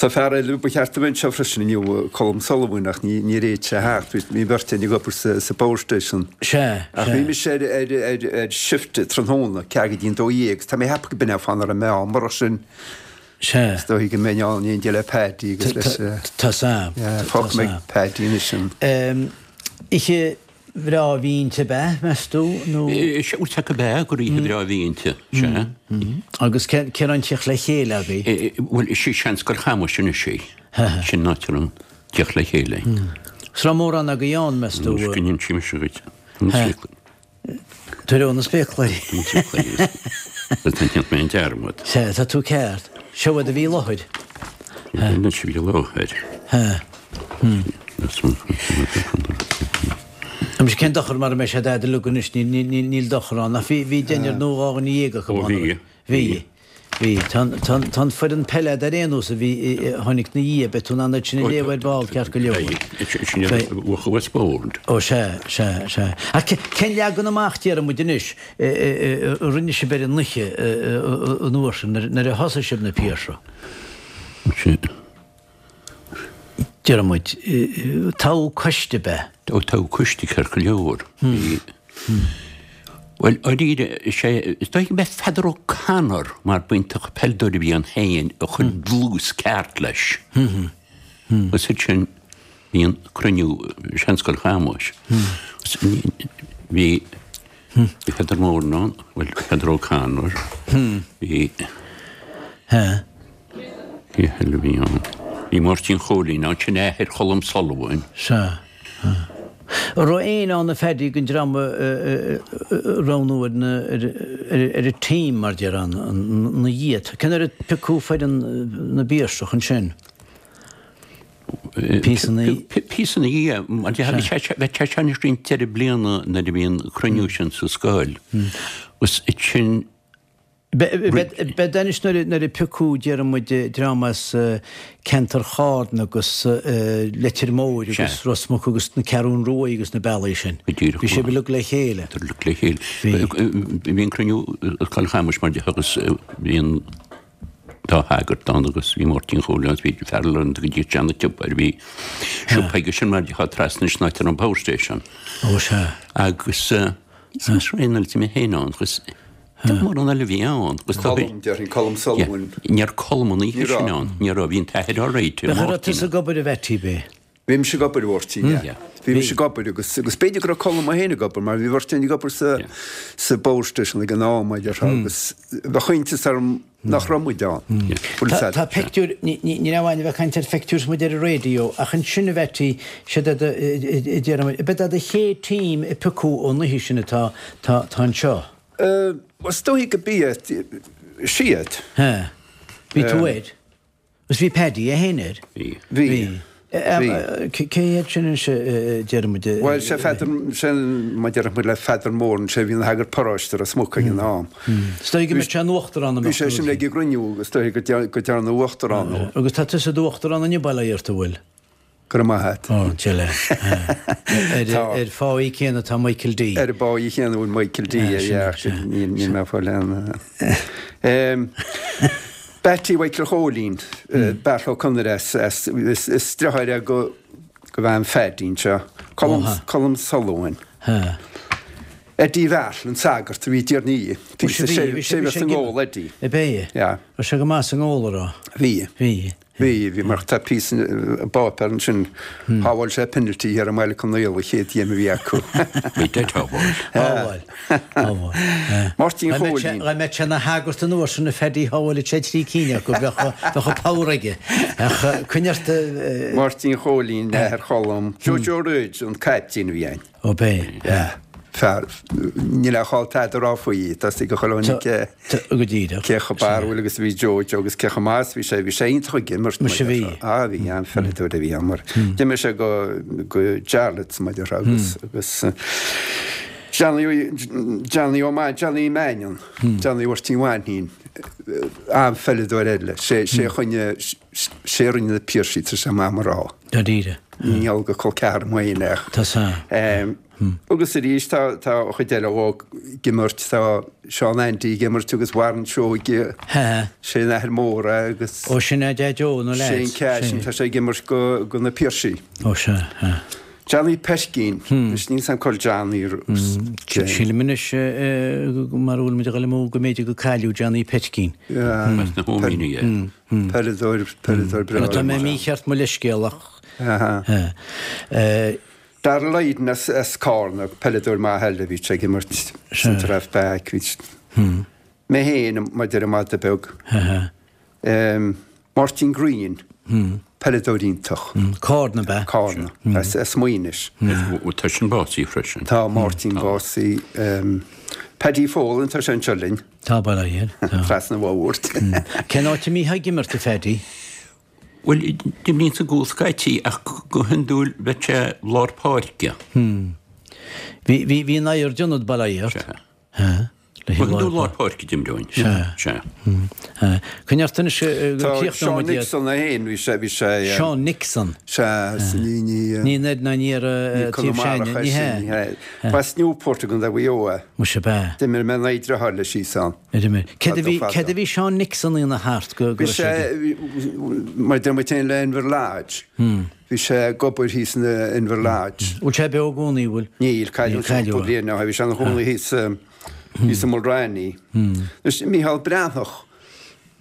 Tá fear eile ba cheart a bheith anseo freisin inniu, Colm Sullivan, ach níor fhéad sé a theacht. Bhí an bheirt againn ag obair sa Power Station. Sea, Ach sea. bhí mise ar, ar, ar, ar shift tráthnóna, ceathair go dtí an 12 agus tá mé ag ceapadh go b'in é an fáth nach raibh mé ann. Murach sin, Sea. is dóigh go mbeinn ann in éindí le Paddy agus leis. Tá sam. Yeah, fágfaidh mé ag Paddy anois an. Oíche bhreá a bhí inti ab ea, meas tú, nó? Sea, bhuel, go b'ea, gur oíche bhreá a bhí inti, sea. Agus cén áit a raibh an tíocht le chéile agaibh? Bhuel, is í Seanscoil Chamuis anois í. Sin an áit a raibh an tíocht le chéile. Is raibh mórán agaibh ann, meas tú? Anois go n-inseoidh mise dhuit. Tar ó na spéacláirí. Tá mé an dearmad. Sea, tá tú ceart. Seo iad a bhí i láthair. Anois a bhí i láthair. Anois cén dochar mara mbeidh sé dad uilig anois, níl dochar ann. Ach bhí deichniúr nó 12 acu Ó bhí. Bhí. Bhí. Tá an foireann peile a'd ar aon nós a bhí, a tháinig 'na dhiaidh, beidh tú in ann iad sin a léamh ar ball ceart go leor. Sin iad a bhuaigh Westbourne. Ó sea, sea, sea. Ach cén leagan amach, déarfaidh muid anois, a rinne sibh ar an oíche an uair sin, nuair a thosaigh sibh na Piarsaigh? Sin. Déarfaidh muid, toghadh coiste ab ea? Ó toghadh coiste ceart go leor. Bhí. Bhuel, dáiríre, is é, is dóigh go mb'é Peadar O'Connor, mar b'iontach peileadóir a bhí ann féin, a chuir dlús ceart leis. Agus ansin bhí an cruinniú i Seanscoil Chamuis. Bhí Bhí Peadar Moran ann, bhuel, Peadar O'Connor, bhí, cé eile a bhí ann? Bhí Máirtín Chóilín ann, sin athair Cholm Sullivan. Sea. An raibh éinne ann a Phaddy den dream a roghnú ar na, ar an team mar déarfá, ina dhiaidh? Cén uair a piocadh foireann na bPiarsach ansin? Píosa ina dhiaidh, mar bheadh sé seo anois roinnt deireadh bliana nuair a bhí an cruinniú sin sa scoil. Agus sin. B'fhéidir anois nuair a piocadh, déarfaidh muid, dream as ceantar Charna agus Leitir Móir agus Ros Muc agus na Ceathrún Ruaidh agus na bealaí sin. Bhí sibh uilig le chéile. Uilig le chéile. Bhí an cruinniú i Scoil Chamuis mar agus bhí an. dá shagart ann agus bhí Máirtín Chóilín agus bhí fear eile ann go dtí sean tsiopa ar bhí siopa aige sin mar atá trasna san áit ar an power station. Ó sea. Agus is raon eile mé féin ann agus mórán eile a bhí ann. Agus Colm, déarfainn, Colm Sullivan. Ní raibh Colm an oíche sin ann, ní raibh, bhí an t-athair alright. Bheadh raibh tusa ag obair a Mheaití, ab ea? Bhí mise ag obair, a Mháirtín, yeah. Bhí mise ag obair agus, agus b'fhéidir go raibh Colm é féin ag obair mar bhí beirt againn ag obair sa, sa Power Station ag an am, a déarfá, agus bheadh iontas orm nach raibh muid ann. Bhfuil Tá, tá pictiúir, ní, ní, ní raibh aon bheith ag caint ar phictiúir is muid ar an raidió, ach ansin a Mheaití, siad iad a, a, a déarfaidh muid, ab é do chéad team a piocadh ón oíche sin atá, tá, tá anseo? Eh, is dóigh go b'iad, siad. Ha. Bhí tú air? Agus bhí Paddy é féin air. Bhí. Bhí. Bhí. Cé hiad sin anois a déarfaidh muid? Bhuel, sé Pheadar, sé má déarfaidh muid le Pheadar Moran, sé a bhí ina shagart paróiste Ros Muc ag an am. Is dóigh go mbeadh sé ina uachtarán Bhí sé sin ag an gcruinniú agus is dóigh go dearnadh uachtarán dó. Agus tá tusa i d'uachtarán inniu, bail ó Dhia ort, an bhfuil? Go raibh maith a't. Ó, deile. Ar pháí céanna atá Michael D. Ar an bpáí chéanna a bhfuil Michael D, yeah, níl mé ag fáil aon. Beatty Mhichael Chóilín, Beartla Ó Conaire as, is deartháir é go bhean Phaddy anseo, Colm Sullivan. Eddie Bheartla, an sagart a bhí i dTír an Fhia. Bhí sé sé sa ngól, Eddie. Ab é? Yeah. Raibh sé go maith sa ngól, a raibh? Bhí. Bhí. Bhí, bhí mar tá píosa i bpáipéar ansin, shábháil sé penalty thiar i mBaile Conaola, an chéad gheim a bhí acu. Bhí dead shábháil. Shábháil. Shábháil. Máirtín Chóilín. Dá mbeadh sé ina shagart an uair sin a Phaddy shábháilfeadh sé trí cinn acu, bheadh an power aige. Ach coinnigh ort. Máirtín Chóilín, athair Cholm, Joe Joe Rhodes an caiptín a bhí ann. Ó b'é. Yeah. Fear, níl a chall tada a rá faoi, tá 'fhios ag chuile dhuine cé, Go díreach. cé chomh barrúil agus a bhí Joe Joe agus cé chomh maith is a bhí sé, bhí sé iontach ag imirt. Muise bhí. Ah bhí, an-pheileadóir a bhí ann mar d'imir sé go, go Jarlath's mar a déarfá agus, agus Johnny, Johnny Ó Main, Johnny Mannion, Johnny Mháirtín Mhainnín, an-pheileadóir eile, sé, sé a choinnigh, sé a rinne na Piarsaigh, tá sé maith mar rá. Dáiríre. Ní gheall go col ceathrar mo fhéin ach. Tá sa. Agus arís tá tá an chuid eile óg ag imirt, tá Seán Andy ag imirt agus Warren Seoige, sé an athair mór é agus. Ó sin é Deaid Joe na lads. Shane Cashin, tá sé ag imirt go go na Piarsaigh. Ó sea, sea. Johnny Peircín, anois níl 's a'm cá bhfuil Johnny. Sílim anois mar a bhfuil muid ag dul amú go mb'fhéidir go cailleadh Johnny Peircín. As na hÓimíní é. Peileadóir, peileadóir breá. Tá mé mícheart mo leithscéal ach. Darragh Lydon as Cárna, peileadóir maith eile, bhí sé ag imirt centre half back, bhí mé féin, mar a deir an madadh beag. Máirtín Greene, peileadóir iontach. Cárna ab ea? Cárna, as Maínis. Tá sin básaithe freisin. Tá Máirtín básaithe. Paddy Folan, tá sé anseo linn. Tá bail ó Dhia air. Tá. Trasna an bhóthair. Cén áit a mbítheá ag imirt, a Phaddy? Bhuel, d'imrínn sa gcúl scaití ach go hiondúil bheadh sé lár páirce. Bhí, bhí, bhí an oighear d'ionad bail ó Dhia ort. Sea. Ha. Le Go hiondúil lár páirce d'imreoinn. Sea. Sea. Ha. Coinnigh ort anois go Tá críochnóidh Seán muid iad. Nixon é féin, bhí sé, bhí sé. Seán Nixon. Sea, ní, ní. Ní an oiread ná ní ar Ní taobh Conamara Seáin, ní é sin, hea. ní hea. B'as Newport i gContae Mhaigh Eo é. Muise ab ea. D'imir mé in aghaidh a dheartháir leis thíos ann. Ar imir. Céard a Fadó bhí, fadó. céard a bhí Seán Nixon a dhéanamh thart go, go Bhí raibh sé sé, ag. mar a deir muid féin le Inver Lodge. Bhí sé ag obair thíos in Inver Lodge. Bhfuil sé beo i gcónaí, bhfuil? Níl, cailleadh Níl, cailleadh cúpla é. bliain ó shin. Bhí sé ina chónaí thíos, thíos i Mulranny. Anois, Mícheál Breathnach.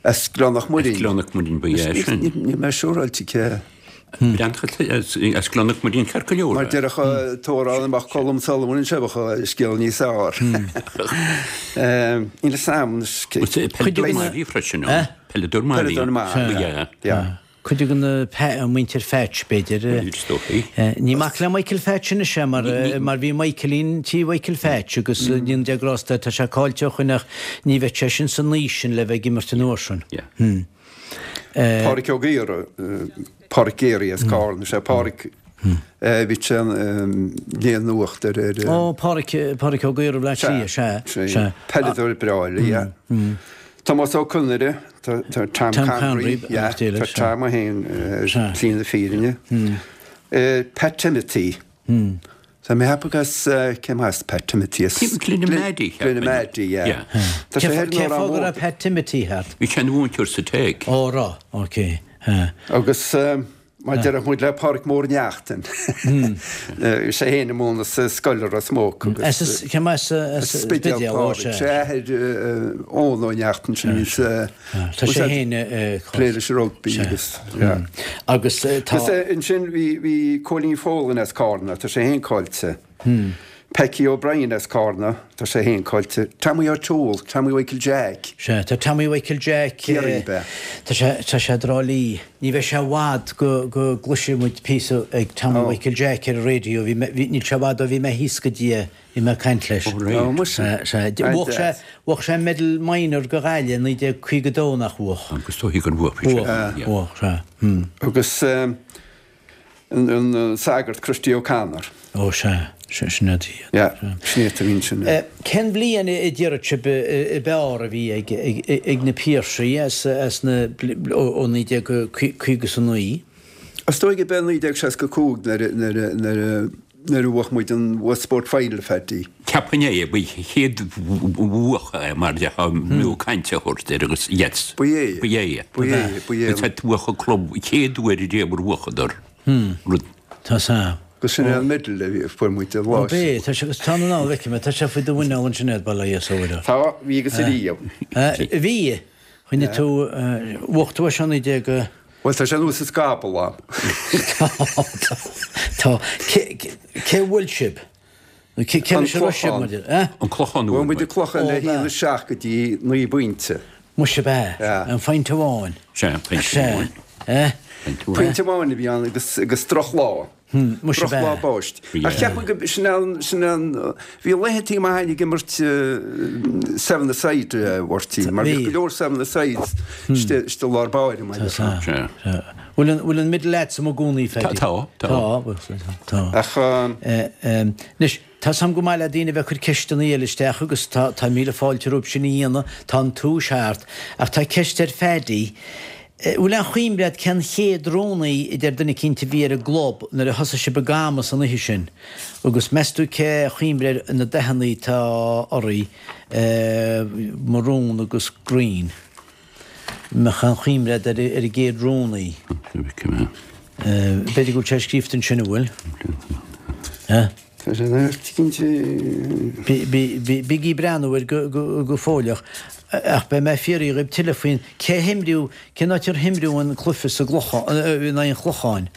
As Gleann Mhuirinn. As Gleann Mhuirinn ba ea sin. Níl mé siúráilte cé. Breathnach as Gleann Mhuirinn ceart go leor. Mar déarfadh an t-amhrán dá mbeadh Colm Sullivan anseo bheadh an scéal níos fearr. Níl fhios a'm anois cé. Peileadóir maith a bhí freisin ann. Peileadóir maith a bhí. Peileadóir maith. Ba ea. Yeah. Cuid de na muintir Phatch, b'fhéidir. Is dóichí. Ní mac le Michael Phatch anois é mar mar bhí Michaelín tí Mhichael Phatch agus ní de grásta tá sé caillte ó shoin ach ní bheadh sé sin san aois sin le bheith ag imirt an uair sin. Pádraic Ó Gaora, Pádraic Geary as Carna, sé Pádraic bhí sé léamh nuacht ar ar. Ó Pádraic, Pádraic Ó Gaora Bhaile Átha Cliath, sea, sea. Peileadóir breá eile, yeah. Tomás Ó Conaire, tá Tom Connery, yeah, tá Tom é féin ar shlí na fírinne. Pat Timothy. Tá mé ag ceapadh as, cé as Pat Timothy? As Glenamaddy. Glenamaddy, yeah. Tá sé thoir Cén fáth go raibh Pat Timothy thart? Bhí sé ina mhúinteoir sa Tech. Ó, raibh, ok. Agus Mar déarfadh muid le Pádraic Mór Neachtain. Bhí sé féin ag múineadh sa scoil i Ros Muc agus. As cé as As Spidéal Pádraic. Sé athair Eoin Ó Neachtain sin a bhí sa. Tá sé féin plé leis an rugbaí agus yeah. Agus tá. Agus ansin bhí bhí Cóilín Folan as Cárna, tá sé féin caillte. Packie O'Brien as Cárna, tá sé féin caillte. Tommy O'Toole, Tommy Mhichael Jack. Sea, tá Tommy Mhichael Jack. Ciarraí, ab ea? Tá sé, tá sé i dTrá Lí. Ní bheidh sé i bhfad go, go gcloisfidh muid píosa ag Tommy Mhichael Jack ar an raidió. Bhí mé, bhí, níl sé i bhfad ó bhí mé thíos go dtí é, bhí mé ag caint leis. Ó, right. Ó, muise. Sea, sea. Bhuaigh sé, bhuaigh sé Medal Minor go Ghaillimh i 1952, nach bhuaigh? Agus dóigh gur bhuaigh sé. Bhuaigh, bhuaigh, sea. Hmm. Agus. An sagart Christy O'Connor. Ó sea, sin iad. Yeah, sin iad a bhí ansin. Cén bhliain a déarfadh sibh ab fhearr a bhí ag na Piarsaigh as na, ó 1959? Is dóigh gurb é 1965 nuair a bhuaigh muid an Westport Final, Phaddy. Cheapfainn é, ba chéad bhuach é mar a b'fhiú caint a thabhairt air agus yes. Ba é. Ba é. Ba é, ba é. Is é bhuach an club chéad uair riamh ar bhuachadar rud. Tá 's a'm. Agus sin é an medal a bhí, a fuair muid an lá sin. Ó b'é, tá sé, agus tá an anall, feicim é, tá sé faoi do mhuineál ansin agat, bail ó Dhia air. Tá, bhí agus ariamh. Bhí, choinnigh tú, bhuaigh tú é seo 19. Bhuel, tá sé anuas sa scaball a'm. Tá, tá, tá. Cé, cé a bhuail sibh? Nó cé, cé leis a raibh sibh, mar deir, eh? An Clochán a bhuail Bhuail muid an Clochán le haon 7 go dtí 9 bpointe. Muise ab ea? Yeah. An phointe amháin. Sea, pointe amháin. Sea, eh? Pointe amháin a bhí ann agus, agus drochlá. Muise ab ea? Drochlá báistí. Ach cheap mé go, sin an, sin an, bhí laethantaí maith againn ag imirt seven-a-side, a Mháirtín, mar bhí go leor seven-a-sides istigh, istigh i lár báire, mar a déarfá. Sea. Sea. Bhfuil an, bhfuil an medal a'dsa i gcónaí, Phaddy? Tá, tá. Tá, bhfuil, tá. Ach. Anois, tá 's a'm go maith le daoine a bheith ag cur ceisteanna eile isteach agus tá, tá míle fáilte rompu sin a dhéanamh, tá an túis thart. Ach tá ceist ar Phaddy. Bhfuil aon chuimhne a'd cén chéad rúnaí a deir duine eicínt a bhí ar an gclub nuair a thosaigh sibh ag camas an oíche sin? Agus meas tú cé chuimhne ar na dathannaí atá oraibh, marún agus green? Mbeadh aon chuimhne a'd ar an gcéad rúnaí? B'fhéidir go bhfuil sé scríofa ansin, an bhfuil? Tá sé ina cinnte. Bígí ag breathnú air go fóilleach, ach beidh mé ag fiafraí dhíbh tuilleadh faoin cé himríodh, cén áit ar himríodh an cluiche sa gClochán, in aghaidh an Chlocháin?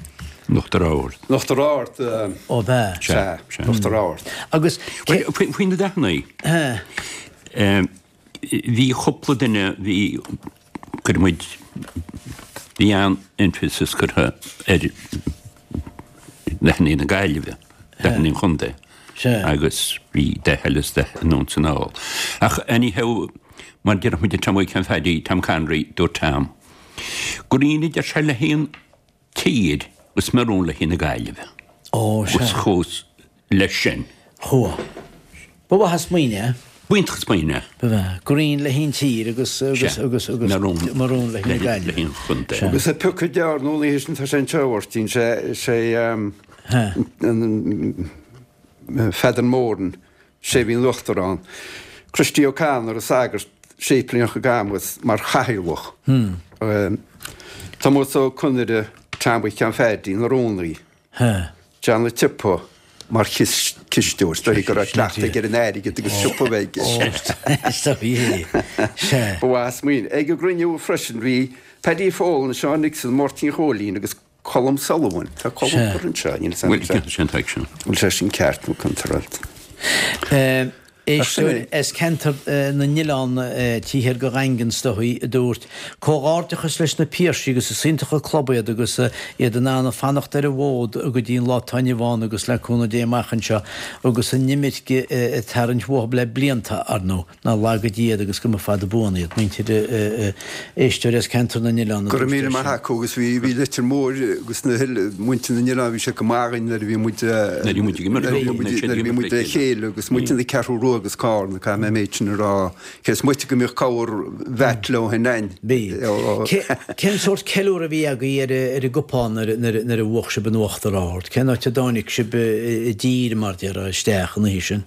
In Uachtar Ard. In Uachtar Ard. Ó b'ea. Sea, sea. Uachtar Ard. Agus cé. Faoi na dathannaí. Bhí cúpla duine, bhí, cuir muid, bhí an-emphasis curtha ar dathannaí na Gaillimhe, dathannaí an chontae agus bhí dath eile is dath anonn is anall. Ach anyhow, mar déarfadh muid Tom Mhic Phaddy, Tom Connery, dúirt Tom, green a deir sé le haghaidh an tír agus maroon le haghaidh na Gaillimhe. Ó, sea. Agus chuas leis sin. Chuaigh. Ba mhaith an smaoineamh é. B'iontach an smaoineamh é. Ba mhaith. Green le haghaidh an tír agus, agus, Sea. agus, agus Maroon. maroon le haghaidh na Le Gaillimhe. haghaidh an chontae. Sea. Agus an piocadh gearr nó an oíche sin tá sé anseo, a Mháirtín, sé, sé, an, Pheadar Moran, sé a bhí ina uachtarán, Christy O'Connor, an sagart, séiplíneach i gCamus, mar chathaoirleach. Tomás Ó Conaire, Tom Mhic Sheáin Phaddy, ina rúnaí. John a' tSiopa mar chisteoir. Is dóigh go raibh cleachtadh aige ar an airgead agus siopa a bheith aige. Ba mhaith an smaoineamh. Ag an gcruinniú freisin bhí Paddy Folan, Seán Nixon, Máirtín Chóilín agus Colm Sullivan. Tá Colm curtha anseo, níl 'fhios a'm bhfuil sé sin ceart nó contráilte. Éisteoir as ceantar na nOileán taobh thiar de Dhaingean is dóigh, a dúirt, Comhghairdeachas leis na Piarsaigh agus is iontach an club iad agus iad in ann fanacht ar an bhfód go dtí an lá atá inniu ann agus le cúnamh Dé amach anseo agus an imirce ag tarraingt uathu le blianta, ar ndóigh. Ná laga Dia iad agus go mba fada buan iad. Muintir éisteoir as ceantar na nOileán a Go raibh dúirt é míle maith sin. acu agus bhí bhí Leitir Móir agus na muintir na nOileán bhí siad go maith againn nuair a bhí muid Nuair a bhí muid ag imirt nuair a bhí muid nuair a bhí muid le chéile agus muintir na Ceathrú Rua agus Cárna caithfidh mé an méid sin a rá cé is moite go mbíodh corr bhat leo féin againn. Bhí. Cén sórt ceiliúradh a bhí agaibh ar ar an gcupán nuair nuair nuair a bhuach sibh an Uachtar Ard? Cén áit a dtáinig sibh i dtír mar déarfá isteach an oíche sin?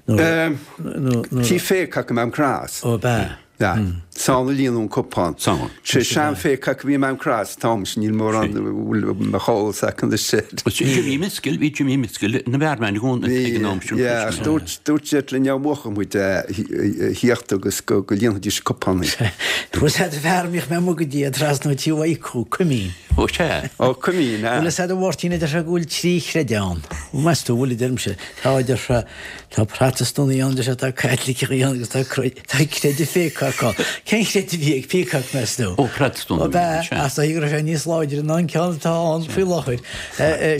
Tigh Pheacock i Maam Cross. Ó, ab ea? Yeah. Is ann a líonadh an cupán. 'S ann. Sé Seán Pheacock a bhí i Maam Cross an t-am sin, níl mórán bhfuil mo eolas acu anois air. Jimmy Miskell, bhí Jimmy Miskell ina bhearman i gcónaí ag an am sin. Yeah, ach dúirt, dúirt siad linn dá mbuafadh muid a thíocht agus go líonfaidís cupánaí. Bhfuil 'fhios a'd fear a mbíodh mé amuigh go dtí trasna tí Mhaidhc Cuimín. Ó sea. Ó Cuimín, ah. Bhfuil 'fhios a'd a Mháirtín a deir sé go bhfuil trí chreideamh ann. Meas tú, bhfuil a deirimse. Tá, a deir sé, tá Protastúnaigh ann, deir sé, tá Caitlicigh ann agus tá tá creideamh Pheacock ann. Cén chreideamh a bhí ag Peacock, meas tú? Ó, Protastúnach Ó, a bhí ann, b'ea, sea. ach is dóigh go raibh sé níos láidre ná an ceann atá ann faoi láthair.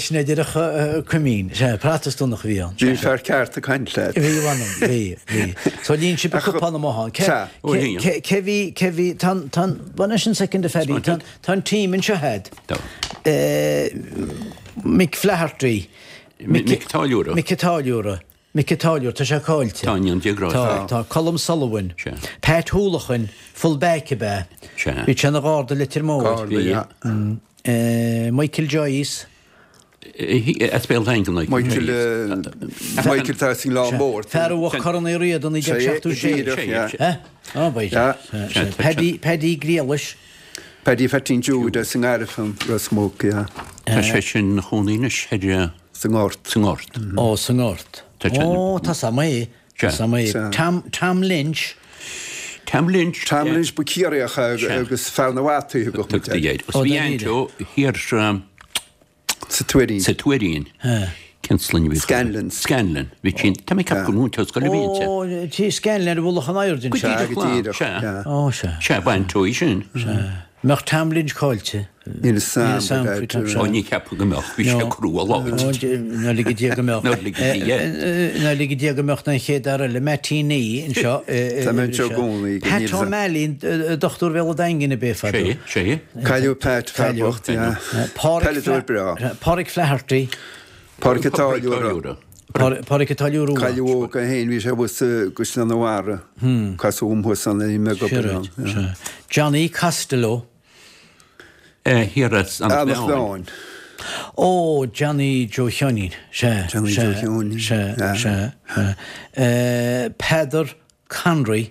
Sin é déarfadh Cuimín. Sea, Protastúnach a bhí ann. Bhí an fear ceart ag caint leat. Bhí, mh'anam, bhí, bhí. So líon sibh an cupán amuigh ann. Cé, Sea. Ó, líon. cé, cé bhí, cé bhí, tá an, tá an, bhuel anois an soicind a Phaddy, tá an, tá an team anseo a'd. Tá. Mick Flaherty. Mick Táilliúra. Mick Táilliúra. Mick Táilliúra, tá sé caillte. Tá, i ndéidh Dé grásta. Tá, tá. Colm Sullivan. Sea. Pat Houlahan, full back ab ea? Sea. Bhí sé ina gharda i Leitir Móir. Garda, yeah. Michael Joyce. As Béal Daingean, Michael Joyce. Michael tá as an nGleann Mór. Fear a bhuaigh Corn Uí Riada 1976. Sé, díreach, yeah. Ó, ba é. Paddy, Paddy Griallais. Paddy Pheaitín Jude as an nGairfean, Ros Muc, yeah. Tá sé sin ina chónaí anois ar. Sa nGort. Sa nGort. Ó, sa nGort. Ó, tá 's a'm é. Tá 's a'm é. Tom, Tom Lynch. Tom Lynch. Tom Lynch ba Ciarraíoch agus fear na bhfataí a thugadh muid air. Ó, bhí Aint thiar sa Tuairín. Sa Tuairín. Cén sloinne a bhí? Scanlon. Scanlon. Bhí sin, tá mé ag ceapadh gur múinteoir scoile a bhí inti. Ó, tí Scanlon ar mhullach an Aird anseo. Go díreach, sea. Ó, sea. Sea, b'aint í sin. Sea. Mbeadh Tom Lynch caillte. Níl 'fhios a'm, but I'd. Ó, ní cheapaim go mbeadh. Bhí sé crua láidir. Ná lige Dia go mbeadh. Ná lige Dia. Ná lige Dia go mbeadh an chéad fhear eile, Mattie Nee, anseo. Tá mé anseo i gcónaí. Pat O'Malley, dochtúir Bhéal an Daingin ab é fadó. Sé, sé. Cailleadh Pat, fear bocht, yeah. Peileadóir breá. Pádraic Flaherty. Pádraic an Táilliúra. Pádraic an Táilliúra Rua. Cailleadh óg é féin, bhí sé thuas i gCaisleán an Bharraigh. Casadh dhom thuas ann, bhí mé ag obair ann. Johnny Costello. Thiar as an Eanach Mheáin. Ó, Johnny Joe Sheáinín. Sea, Johnny Joe Sheáinín. Sea, sea, sea. Peadar Conroy.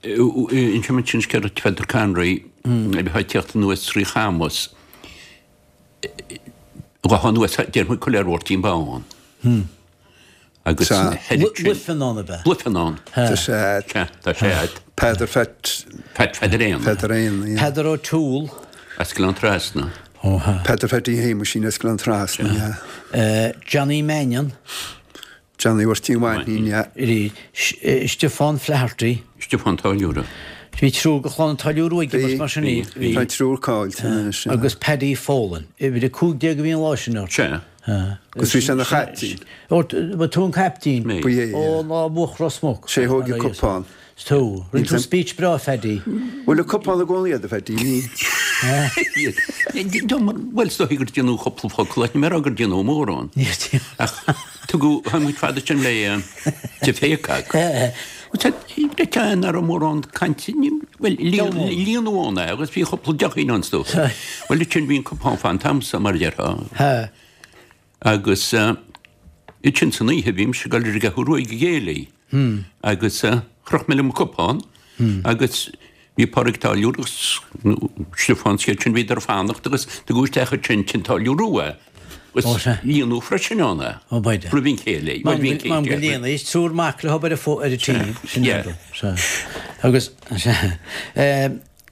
Inseoidh mé sin scéal Pheadar Conroy a bheith ag tíocht anuas trí Chamus. Ghabhfá anuas, déarfaidh muid Coiléar Mháirtín Bán. Agus Luifeanán ab ea? Luifeanán. Tá sé a'd. Sea, tá sé a'd. Peadar Phat. Pat Pheadair Éanna. Peadar Éanna, yeah. Peadar O'Toole. As Gleann Trasna. Ó ha. Peadar Pheaidí Shéamuisín as Gleann Trasna, yeah. Johnny Mannion. Johnny Mháirtín Mhainnín, yeah. Stiofán Flaherty. Stiofán Táilliúra. Bhí triúr de chlann an Táilliúra Rua ag imirt mar sin. Bhí, bhí. Tá triúr caillte anois, yeah. Agus Paddy Folan. Uimhir 15 a bhí an lá sin ort. Sea. Agus bhí sé ina chaiptín. Ó, ba tú an caiptín? Mé. Ba é, yeah. Ó, lá a bhuaigh Ros Muc. Sé thóg an cupán. 'S tú. Rinne tú speech breá, Phaddy. Bhfuil an cupán i gcónaí agat, a Phaddy? Bhuel, is dóigh gur déanadh cúpla focal ach ní mé a rá gur déanadh mórán. Ach tugadh, tháinig muid fada sin le de Phéacag. Nach raibh mórán cainte, bhuel, líonadh ann é agus bhí cúpla deochín ann is dócha. Bhuel, ansin bhí an cupán fán t-am so, mar a déarfá. Agus ansin san oíche bhí mise ag dul ar an gCeathrú Rua ag an gcéilí agus chroch mé liom an cupán agus bhí Pádraig Táilliúr agus Stiofán is iad sin bhíodar ag fanacht agus tugadh isteach ansin tigh an Táilliúra Rua é agus líonadh freisin ann é roimh an chéilí. Bhuel bhí an céilí. M'anam go líonadh, is triúr mac le hobair ar an tí. Sin é. Agus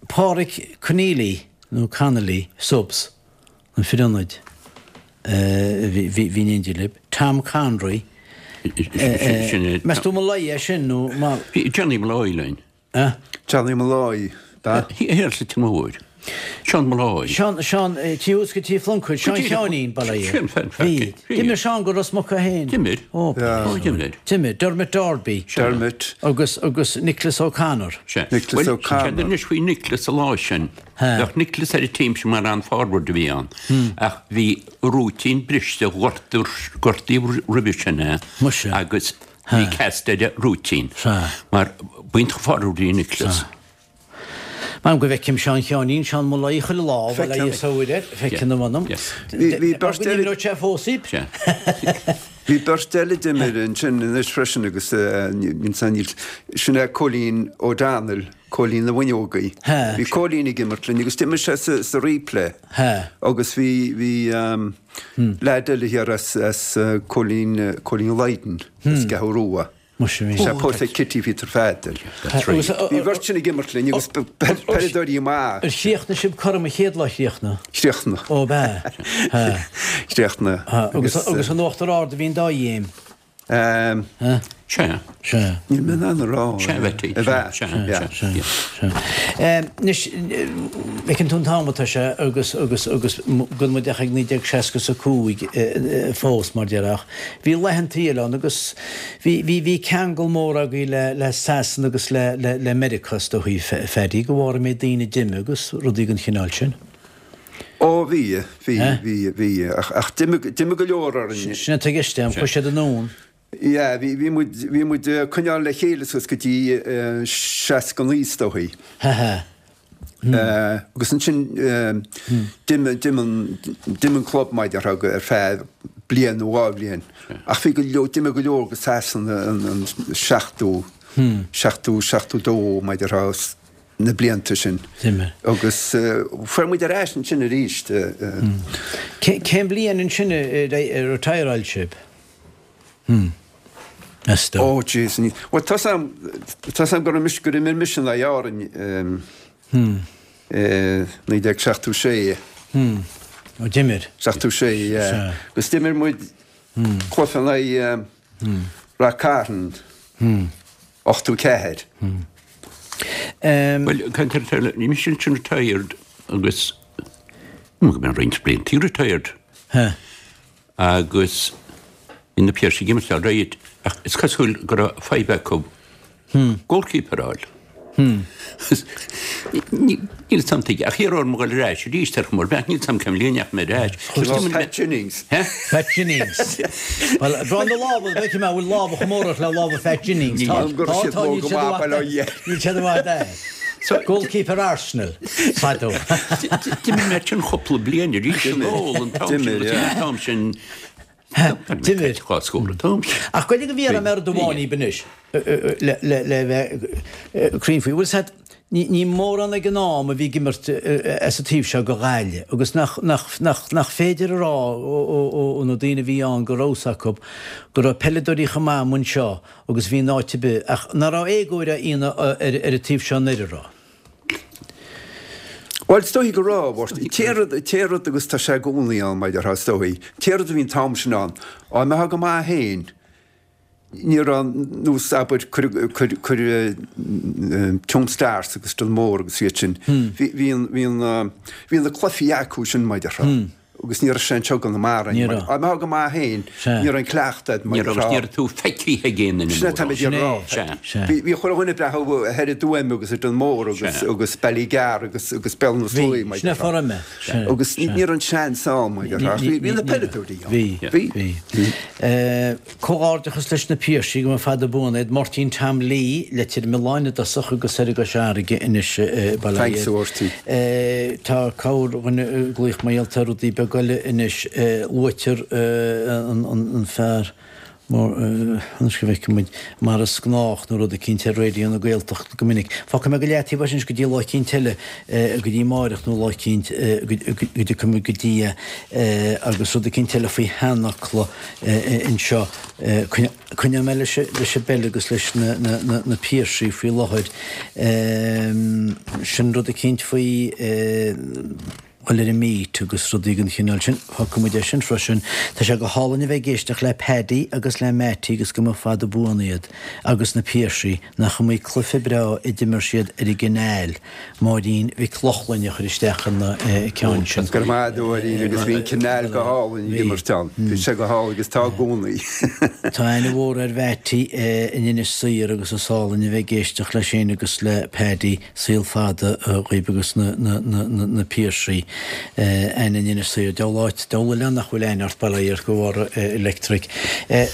Pádraig Conneely nó Connolly, subs. An fear ionaid a bhí in éindí libh, Tom Conroy. Meas tú Molloy é sin nó mar. Bhí Johnny Molloy linn. Johnny Molloy, ba? Thiar sa Tigh Mhóir. Seán Molloy. Seán, Seán, tí thuas go Tí Phluincéid, Seán Sheáinín, ba é. Bhí. D'imir Seán go Ros Muc é féin. D'imir. Ó, d'imir. D'imir. Dermot Darby. Dermot. Agus, agus Nicholas O'Connor. Nicholas O'Connor. Bhuel, anois faoi Nicholas an lá sin. Bheadh Nicholas ar an team sin mar an-forward a bhí ann ach bhí rúitín briste, gortaíodh roimhe sin é agus bhí cast ar an rúitín mar b'iontach forward a bhí i Nicholas. M'anam go bhfeicim Seán Sheáinín, Seán Molloy chuile lá, bhuel a fhios a air, feiceann a mh'anam. Bhí beirt eile. Go n-imreodh sé fós iad. Bhí beirt eile d'imir ansin anois freisin agus sin é Cóilín O'Donnell. Cóilín na bhFuinneogaí. Bhí Cóilín ag imirt linn agus d'imir sé sa replay agus bhí, bhí leaid eile thiar as, as Cóilín, Cóilín Lydon as gCeathrú Rua. Muise bhí. Sé pósta Kitty Pheter Pheadair. Bhí beirt sin ag imirt linn agus peileadóirí maith. Ar chríochnaigh sibh cothrom an chéad lá chríochnaigh? Chríochnaigh. Ó ab ea? Chríochnaigh. Agus, agus in Uachtar Ard a bhí an dá ghéim. Sea. Sea. Níl mé in ann a rá. Sea, a Bheití. A bheith. Sea, sea, sea. Sea. Anois, feiceann tú an t-am atá sé agus, agus, agus gan muid ach ag 1965 fós, mar déarfá. Bhí laethanta eile ann agus bhí, bhí, bhí ceangal mór agaibh le, le Sasana agus le, le, le Meiriceá is dóichí, Phaddy, de bharr an méid daoine a d'imigh agus rudaí den chineál sin. Ó, bhí, bhí, bhí, bhí, ach d'imigh, d'imigh go leor orainn. Sin atá i gceist agam, chuaigh siad anonn. Yeah, bhí, bhí muid, bhí muid ag coinneáil le chéile suas go dtí 69 is dóichí. Ha ha. Agus ansin d'imigh, d'imigh an, d'imigh an club mar a déarfá ar feadh bliain nó dhá bhliain. Ach bhí go leor, d'imigh go leor go Sasana an, an 70, 70, 72 mar a déarfá. na blianta sin. D'imir. Agus fuair muid ar ais ansin arís. Cén bhliain ansin a retireáil sibh? Meas tú? Oh jeez, ní, bhuel tá 's a'm, tá 's a'm go raibh mise, gur imir mise in aghaidh Árainn i 1976. Ó d'imir. 76, yeah. Agus d'imir muid cluiche in aghaidh Rath Cairn, 84. Bhuel, caint ar retired, bhí mise ansin retired agus go mbeidh roinnt blianta retired. Agus bhí na Piarsaigh ag imirt all right ach is cosúil go raibh fadhb acu goalkeeper a fháil. Níl 'fhios a'm tuige ach iarradh orm a dhul ar ais arís ar chuma ar bith, níl 'fhios a'm cén bhliain a ndeachaigh mé ar ais. Pat Jennings. Pat Jennings. Bhuel, brón na lámha, b'fhéidir mé, bhfuil lámha chomh mór ort le lámha Phat Jennings. Tá, tá, tá, níl siad i bhfad, níl siad i bhfad air. Goalkeeper Arsenal, fadó. D'imir mé sin cúpla bliain arís anall an t-am sin, an t-am sin. D'imir. Dhá scór an t-am sin. Ach gabh i leith go bhfiafraí mé rud amháin dhíbh anois le bheith cruinn faoi. Bhfuil 's a'd, ní mórán ag an am a bhí ag imirt as an taobh seo go Ghaillimh agus nach, nach, nach, nach féidir a rá ó na daoine a bhí ann go raibh 's acu go raibh peileadóirí chomh maith amuigh anseo agus bhí in áit ar bith, ach nach raibh éagóir á dhéanamh ar an taobh seo anoir, an raibh? Bhuel, is dóigh go raibh, Mháirtín. Té rud, té rud agus tá sé i gcónaí ann, mar a déarfá, is dóigh. Té rud a bhí an t-am sin ann, dá mbeifeá go maith féin, ní raibh nós, abair, cuir, cuir, cuir Tuam Stars agus Donmore agus iad sin, bhí, bhí an, bhí an, bhí na cluichí acu sin, mar a déarfá. Agus ní raibh sé anseo i gConamara. Ní raibh. Dá mbeifeá go maith féin, ní raibh an cleachtadh a'd mar Ní raibh, agus ní raibh tú feicthe ag aon duine Sin é atá mé ag rá. Sea. Sea. Bhí, bhí chuile dhuine ag breathnú thoir i dTuaim agus i Donmore agus, agus Ballygar agus, agus Béal na Sluaighe, mar Sin é déarfá. fora mé. Sea. Agus ní, ní raibh an seans ann, mar déarfá. Ach bhí, bhí na peileadóirí ann. Bhí. Bhí. Bhí. Comhghairdeachas leis na Piarsaigh, go mba fada buan iad. Máirtín Tom Lee, Leitir Mealláin i dtosach agus thoir i gCois Fharraige anois, bail ó Thanks a Mháirtín. Tá corrdhuine ag glaoch mar gheall ar rudaí beaga eile anois. Luaitear an fear mór, anois go bhfeicfidh muid, mar is gnách nó rud eicínt ar Raidió na Gaeltachta go minic. Fágfaidh mé go leataobh é sin anois go dtí lá eicínt eile, go dtí amáireach nó lá eicínt go dtiocfaidh muid go dtí é agus rud eicínt eile faoi sheanfhocla. anseo. Coinneoidh mé leis an bpeil agus leis na Piarsaigh faoi láthair. Sin rud eicínt faoi dhul ar an meet agus rudaí den chineál sin. Fágfaidh muid é sin freisin. Tá sé go hálainn a bheith ag éisteacht le Paddy agus le Mattie agus go mba fada buan iad agus na Piarsaigh. Nach iomaí cluiche breá a d'imir siad ar an gCanal. Máirín Mhic Lochlainn a chuir isteach an ceann sin. Go raibh maith agat a Mháirín agus bhí an Canal go hálainn ag imirt ann. Bhí sé go hálainn agus tá i gcónaí. Tá aithne mhór ar Mhattie in Inis Oírr agus is álainn a bheith ag éisteacht leis féin agus le Paddy. Saol fada dhaoib agus na Piarsaigh. Aithne in Inis Oírr. Diabhal áit, diabhal oileán nach bhfuil aithne ort, bail ó Dhia ort, go bhfóire Electric.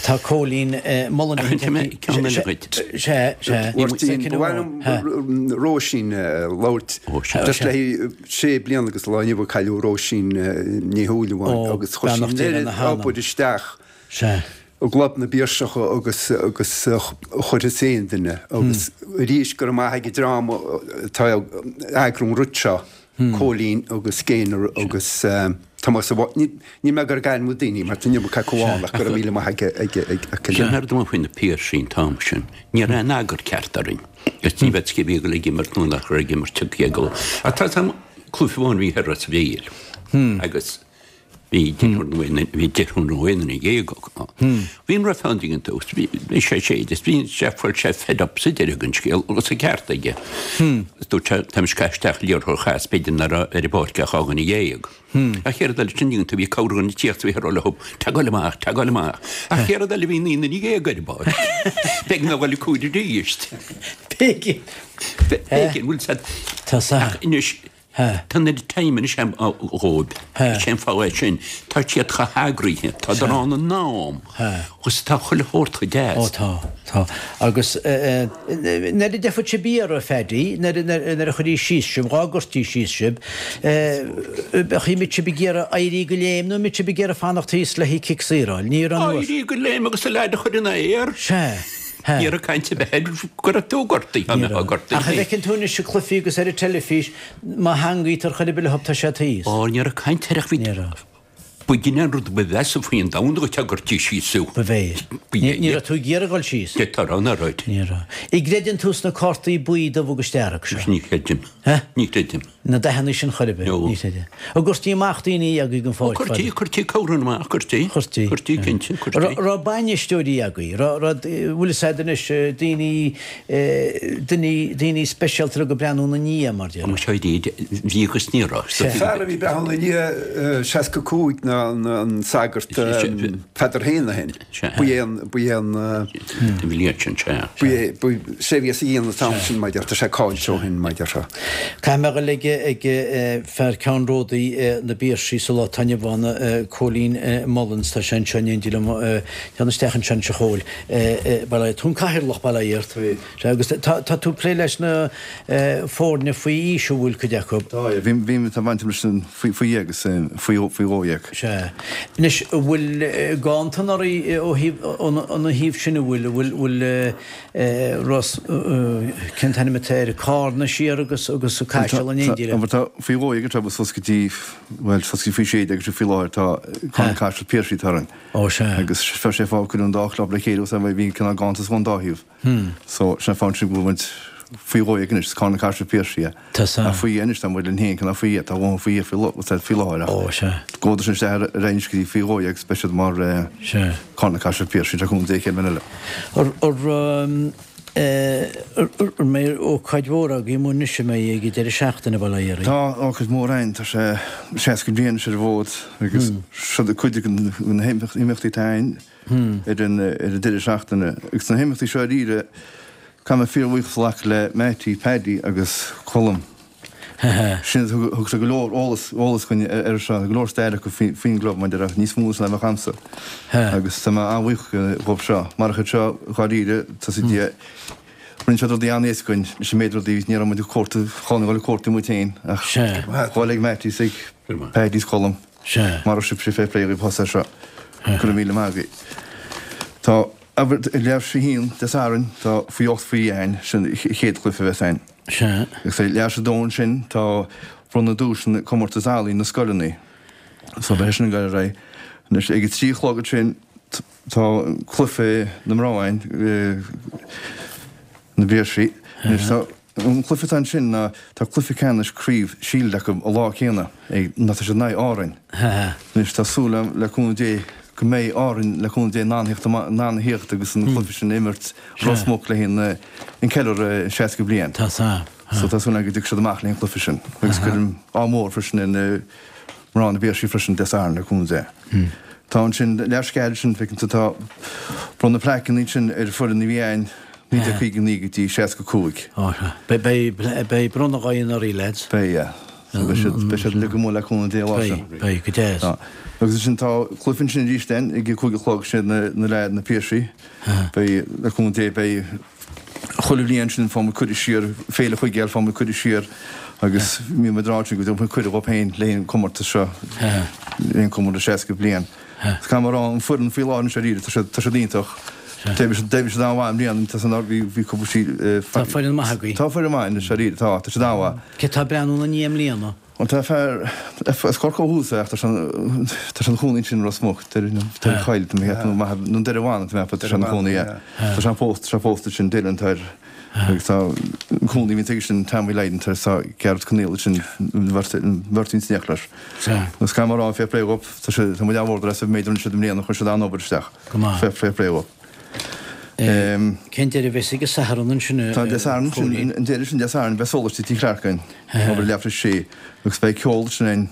Tá Cóilín Mullen Ach an mé ceann eile dhuit? Sea, sea. Mháirtín, ba mhaith liom Róisín a labhairt. Just le sé bliana agus lá inniu a cailleadh Róisín Ní Shúilleabháin agus chuir sí an oiread obair isteach i gClub na bPiarsach agus agus a chuirfeas aon duine agus arís go raibh maith ag an dream atá ag eagrú an rud seo. Cóilín agus Gaynor agus Tomás a Níl mé ag iarraidh ainmniú daoine mar tá an iomarca acu ann ach go raibh míle maith ag ag ag ag Sin ar dóigh faoi na Piarsaigh an t-am sin. Ní raibh aon eagar ceart orainn. Agus ní bheadh cé bhí ag dul ag imirt nó nach raibh ag imirt ag dul. Ach tá an cluiche amháin bhí thoir Ros a' Mhíl agus Bhí deirfiúr nó aon bhí deirfiúr nó aon duine dhéag acu. Bhí an ref ann ag an tús, bhí bhí sé séid is bhí sé fuair sé fed up sa deireadh den scéal agus an ceart aige. Is dúirt sé táimid ag caitheamh isteach liathróid a chas b'fhéidir nach raibh ar an bpáirc ach dhá dhuine dhéag. An chéad rud eile sin dhéanta bhí corrdhuine ag tíocht bhí ag rá leo tá ag goil amach, tá ag goil amach. An chéad rud eile bhí naoi nduine dhéag ar an bpáirc. B'éigean a dhul ag cúil arís. B'éigean. B'éigean, bhfuil 's a'd. Tá 's a'd. Ach anois Tá an oiread time anois dhóibh. Is é an fáth é sin. Tá siad chomh heagraithe. Tádar ann in am. Agus tá chuile shórt chomh deas. Ó tá, tá. Agus nuair a d'fhéadfadh sibh iarraidh, a Phaddy, nuair a chuirí síos sibh, dhá gcuirtí síos sibh, bheadh mbeadh sibh ag iarraidh éirí de léim nó mbeadh sibh ag iarraidh fanacht thíos le haghaidh cic saor a fháil? Ní raibh an. Éirí de léim agus an leaid a chur ina aer. Sea. Ní raibh caint ar bith air go raibh tú gortaithe, dá mbeifeá gortaithe. Ach an bhfeiceann tú anois i cluichí agus ar an teilifís, má theangaítear chor ar bith leo tá sé thíos. Ó, ní raibh caint air ach bhí. Ní raibh. B'in an rud ba mheasa faoin domhan dhuit dá gcuirtí síos thú. Ba bhé. Ní raibh tú ag iarraidh dul síos. D'fhéadfá a rá nach raibh. Ní raibh. An gcreideann tú sna cártaí buí, dubh agus dearg seo? Ní chreidim. Hé? Ní chreidim. Na dathanna sin chor ar bith? No. Ní chreidim. An gcuirtí amach daoine agaibh den pháirc fada? Chuirtí, chuirtí corrán amach, chuirtí. Chuirtí. Chuirtí, cinnte, chuirtí. Raibh bainisteoirí agaibh? Raibh, raibh, bhfuil fhios a'd anois, daoine, daoine, daoine speisialta a raibh ag breathnú ina ndiaidh, mar déarfá. Muise bhí agus ní raibh. Fear a bhí ag breathnú ina ndiaidh 65 ná an sagart Peadar Heneghan. Ba é an, ba é an. An bhliain sin, sea. Ba é, ba, sé a bhí as a dhéanamh an t-am sin, mar déarfá, tá sé caillte ó shin, mar déarfá. Caithfidh mé a dhul ag, ag fear ceannródaí na bPiarsaigh sa lá atá inniu ann, Cóilín Mullins, tá sé anseo in éindí liom, téann isteach anseo anois a Chóil. Bail ó Dhia, tú an cathaoirleach, bail ó Dhia ort. Sea, agus tá, tá tú ag plé leis na foirne faoi aois an bhfuil cuid acu? Tá, yeah, bhí, bhí, tá baint agam leis an faoi, faoi dhéag agus faoi, faoi 12. Sea. Anois, an bhfuil ganntan anuraidh ó thaobh, óna thaobh sin, an bhfuil, an bhfuil, bhfuil Ros, cén t-ainm atá air, Cárna siar agus, agus Caiseal in éindí le? Tá, faoi 12 atá suas go dtí, bhuel, suas go dtí faoi 16 agus faoi láthair tá Cárna Caiseal Piarsaigh atá orainn. Ó sea. Agus bheadh sé fáth cuireadh an dá chlub le chéile os bhí cineál ganntanas ón dá thaobh. So sin an fáth ansin go bhfuil muid faoi 12 anois, is Carna Caiseal Piarsaigh é. Tá sea. Ach faoi anois tá muid linn féin cineál faoi tá dhóthain faoi faoi faoi láthair ach Ó sea. gabhfaidh sin isteach ar ar aghaidh anois go dtí faoi 12 agus beidh siad mar Sea. Carna Caiseal Piarsaigh le cúnamh Dé chéad bhliain eile. Ar ar An mbeidh ócáid mhór agaibh amuigh anois an mbeidh ag an deireadh seachtaine bail ó Dhia oraibh? Tá ócáid mhór againn, tá sé 60 bliain anois ar an bhfód agus seo cuid de na himeachtaí atá againn ar an deireadh seachtaine. Agus na himeachtaí seo dáiríre, caithfidh mé fíorbhuíochas a ghlacadh le Mattie, Paddy agus Colm. Sin, thug siad go leor eolas, eolas dhúinn ar seo, go leor stair acu faoin gclub, mar a déarfá, níos mó ná a bheadh a'msa. Agus tá mé an-bhuíoch dhóibh seo. Marach iad seo, dháiríre, tá siad, rinne siad rudaí an-éasca dhúinn, leis an méid rudaí, ní raibh muid ag cuartú, chun a dhul ag cuartú muid féin, ach dhul ag Mattie is ag Paddy is Colm. Mar a sibh, fair play dhaoibh thusa seo. Go raibh míle maith agaibh. Tá, abair, leathuair tar éis a haon Dé Sathairn, tá faoi 8 faoi 1, sin an chéad chluiche a bheas againn. Sea. Agus ag leathuair tar éis a dó ansin tá bronnadh duaiseanna comórtas ealaíon na scoileanna. So beidh sin ag dul ar aghaidh. Anois ag a 3 a chlog ansin tá cluiche na mná againn, na bPiarsaigh. Anois tá an cluiche atá ansin ná tá cluiche ceannais craobh Shield acu an lá céanna ag ná tá siad in aghaidh Árainn. Anois tá súil agam le cúnamh Dé go mbeidh Árainn le cúnamh Dé in ann theacht in ann a theacht agus an cluiche sin a imirt Ros Muc le haghaidh an ceiliúradh 60 bliain. Tá sea. So tá súil agam go dtiocfaidh siad amach le haghaidh an cluiche sin. Agus cuirim ádh mór freisin ar na mná na bPiarsaigh freisin Dé Sathairn le cúnamh Dé. Tá ansin leathuair tar éis a 4 ansin feiceann tú tá bronnadh plaiceanna ansin ar foireann a bhí ann 1959 go dtí 65. Ó sea. Beidh beidh bronnadh agaibh anuraidh lads. Beidh yeah. So beidh siad beidh siad uilig amuigh le cúnamh Dé an lá sin. Beidh beidh go deas. Tá. Agus ansin tá cluiche ansin arís then ag a 5 a chlog sin na na na Piarsaigh. Beidh, le cúnamh Dé, beidh chuile bhliain sin faigheann muid cuireadh siar, Féile Chuigéil faigheann muid cuireadh siar agus bíonn muid ag rá go dtabharfaidh muid cuireadh dhóibh féin le haghaidh an comórtas seo, le haghaidh an comórtas 60 bliain. Is caithfidh mé a rá, an foireann faoi láthair anois dáiríre, tá siad, tá siad iontach. D'oibrigh siad, d'oibrigh siad an-mhaith i mbliana, tá san, bhí, bhí cúpla sí, Tá foireann maith agaibh. Tá foireann maith anois dáiríre, tá, tá siad an-mhaith. Cé tá ag breathnú ina ndiaidh i mbliana? Bhuel tá fear as Corcaigh ó thús é ach tá sé tá sé ina chónaí ansin i Ros Muc, Doire Choill tá mé ag ceapadh nó maith nó Doire Bhanna tá mé ag ceapadh tá sé ina chónaí yeah. Tá sé pósta tá sé pósta ansin Dylan tá air agus tá an cónaí a bhíonn aige sin Tommy Lydon tá tá Gearóid Conaill ansin an bheirt an bheirt ins an leis. Agus caithfidh mé a rá fair play dhóibh tá sé tá muid an-mhór as an méid a rinne siad i mbliana chuir siad an-obair isteach. Go maith. Fair fair play dhóibh. Cén deireadh a bheas ag an Satharn ansin a Tá Dé Sathairn ansin, an deireadh sin Dé Sathairn, beidh sólaistí Tigh Chlarke againn, obair leathuair tar éis a sé, agus beidh ceol ansin againn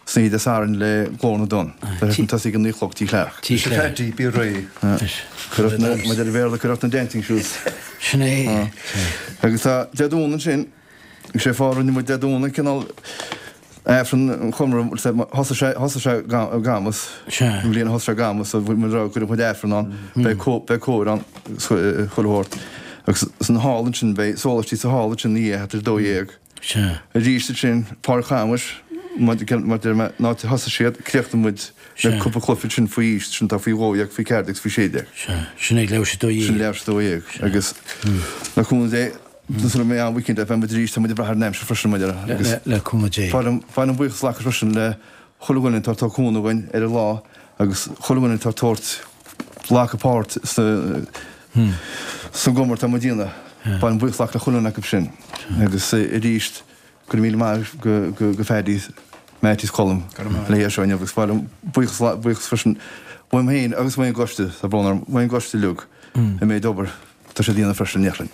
san oíche Dé Sathairn le Glór na dTonn. Beidh sé sin tosaithe ag a 9 a chlog Tigh Chlarke. Tigh Chlarke. Paddy, bí réidh. Cuir ort na, mar a deir an Béarla, cuir ort na dancing shoes. Sin é. Agus tá Dé Domhnaigh ansin, Is é fáth a rinne muid Dé Domhnaigh cineál Aifreann an Chonradh, thosaigh sé, thosaigh sé i gCamus, an bhliain a thosaigh sé i gCamus, so bhí muid ag rá go gcuirfeadh muid Aifreann ann, beidh beidh cór ann, chuile shórt. Agus san hall ansin, beidh sólaistí sa hall ansin ina dhiaidh, thart ar 12. Arís ansin, Páirc Chamuis. Mar a deir mé, an áit a thosaigh siad, críochnaigh muid le cúpla cluiche ansin faoi aois, sin atá faoi 12, faoi 14 agus faoi 16. Sea, sin ag leathuair tar éis 12. Sin leathuair tar éis 12. Agus le cúnamh Dé, sula mbeidh an weekend beidh muid arís, tá muid ag brath ar an aimsir freisin, mar a déarfá. Agus Le cúnamh Dé. Ba mhaith liom buíochas a ghlacadh freisin le chuile dhuine atá ag tabhairt cúnamh dhúinn ar an lá agus chuile dhuine atá ag tabhairt, glacadh páirt sa sa gcomóradh atá muid a dhéanamh. Ba mhaith liom buíochas a glacadh le chuile dhuine acu sin. Agus arís, Go raibh míle maith go Phaddy, Mattie is Colm le hé seo inniu agus ba mhaith liom buíochas buíochas freisin uaim féin agus uaidh an gcoiste, tá brón orm, uaidh an gcoiste uilig an méid obair atá siad a dhéanamh freisin in Neachlainn.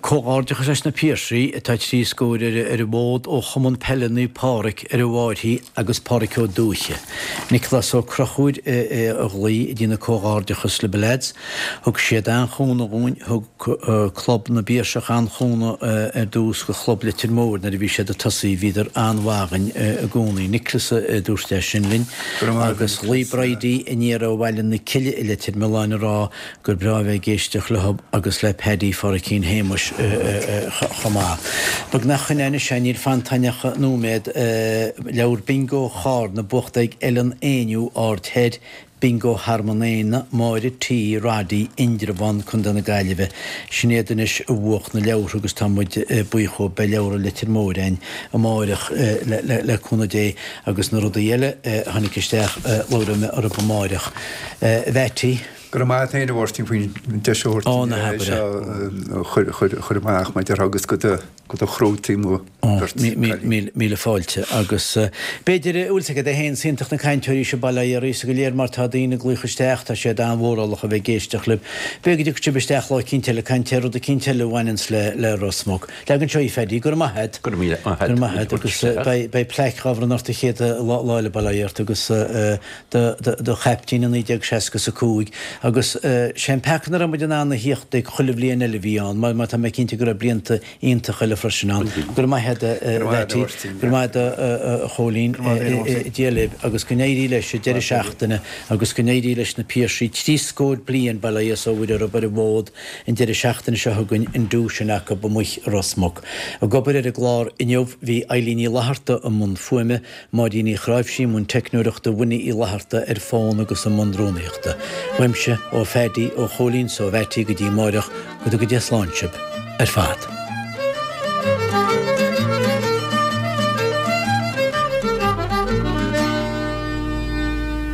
Comhghairdeachas leis na Piarsaigh atá trí scór ar an bhfód ó Chumann Peile Naomh Pádraig ar an bhFairche agus Pádraic Ó Dúiche. Nioclás Ó Conchúir a ghlaoigh ag déanamh comhghairdeachas libh a leaids. Thug siad an-chúnamh dhúinn, thug Club na bPiarsach an-chúnamh ar dtús go Chlub Leitir Móir nuair a bhí siad ag tosaí, bhíodar an-mhaith againn i gcónaí. Nioclás a dúirt é sin linn. Agus ghlaoigh Bridie aniar ó Bhaile na Cille i Leitir Mealláin a rá gur breá a bheith ag éisteacht leo agus le Paddy Pháraichín Shéamuis chomh maith. Beagnach chun anois é, níl fanta againn ach nóiméad. Leabhar Bingo Charna buachta ag Ellen Éinniú, Aird Thoir, Bingo Thearmann Éanna, Máire T. Roddy, Indreabhán, Co. na Gaillimhe. Sin iad anois a bhuach na leabhartha agus tá muid buíoch dhóibh. Beidh leabhartha Leitir Móir againn amáireach le cúnamh Dé agus na rudaí eile a tháinig isteach labhróidh mé orthu amáireach. A Mheaití. Go raibh maith a't féin a Mháirtín faoin deis a thabhairt Ó, ná habair é. seo a chur amach mar a déarfá agus go do go do chruthú mo bheirt cailín. Míle fáilte. Agus b'fhéidir, bhfuil 's agat é féin, is iontach na cainteoirí seo bail ó Dhia oraibhse go léir mar tá daoine ag glaoch isteach, tá siad an-mhórálach a bheith ag éisteacht libh. B'fhéidir go dtiocfaidh sibh isteach lá eicínt eile ag caint ar rud eicínt eile a bhaineanns le le Ros Muc. Leag anseo í Phaddy, go raibh maith a't. Go raibh míle maith a't. Go raibh maith a't agus beidh beidh plaic dhá bhronnadh ort an chéad lá lá eile bail ó Dhia ort agus do do do chaiptín i 1965 agus sé an peaca nach raibh muid in ann a thíocht ag chuile bhliain eile a bhí ann mar mar tá mé cinnte go raibh blianta iontach eile freisin ann. Go raibh maith a't a Mheaití, go raibh maith a't a Chóilín, Dia libh agus go n-éirí leis an deireadh seachtaine agus go n-éirí leis na Piarsaigh 30 scór bliain, bail ó Dhia is ó Mhuire orthu ar an bhfód an deireadh seachtaine seo chugainn an duais sin acu amuigh i Ros Muc. Ag obair ar an gclár inniu bhí Eilín Ní Fhlatharta i mbun fuaime, Máirín Uí Chráimhsí i mbun teicneoireachta, Winnie Uí Fhlatharta ar fón agus i mbun rúnaíochta. Uaimse, ó Phaddy, ó Chóilín 's ó Mheaití go dtí amáireach, go dtuga Dia slán sibh ar fad.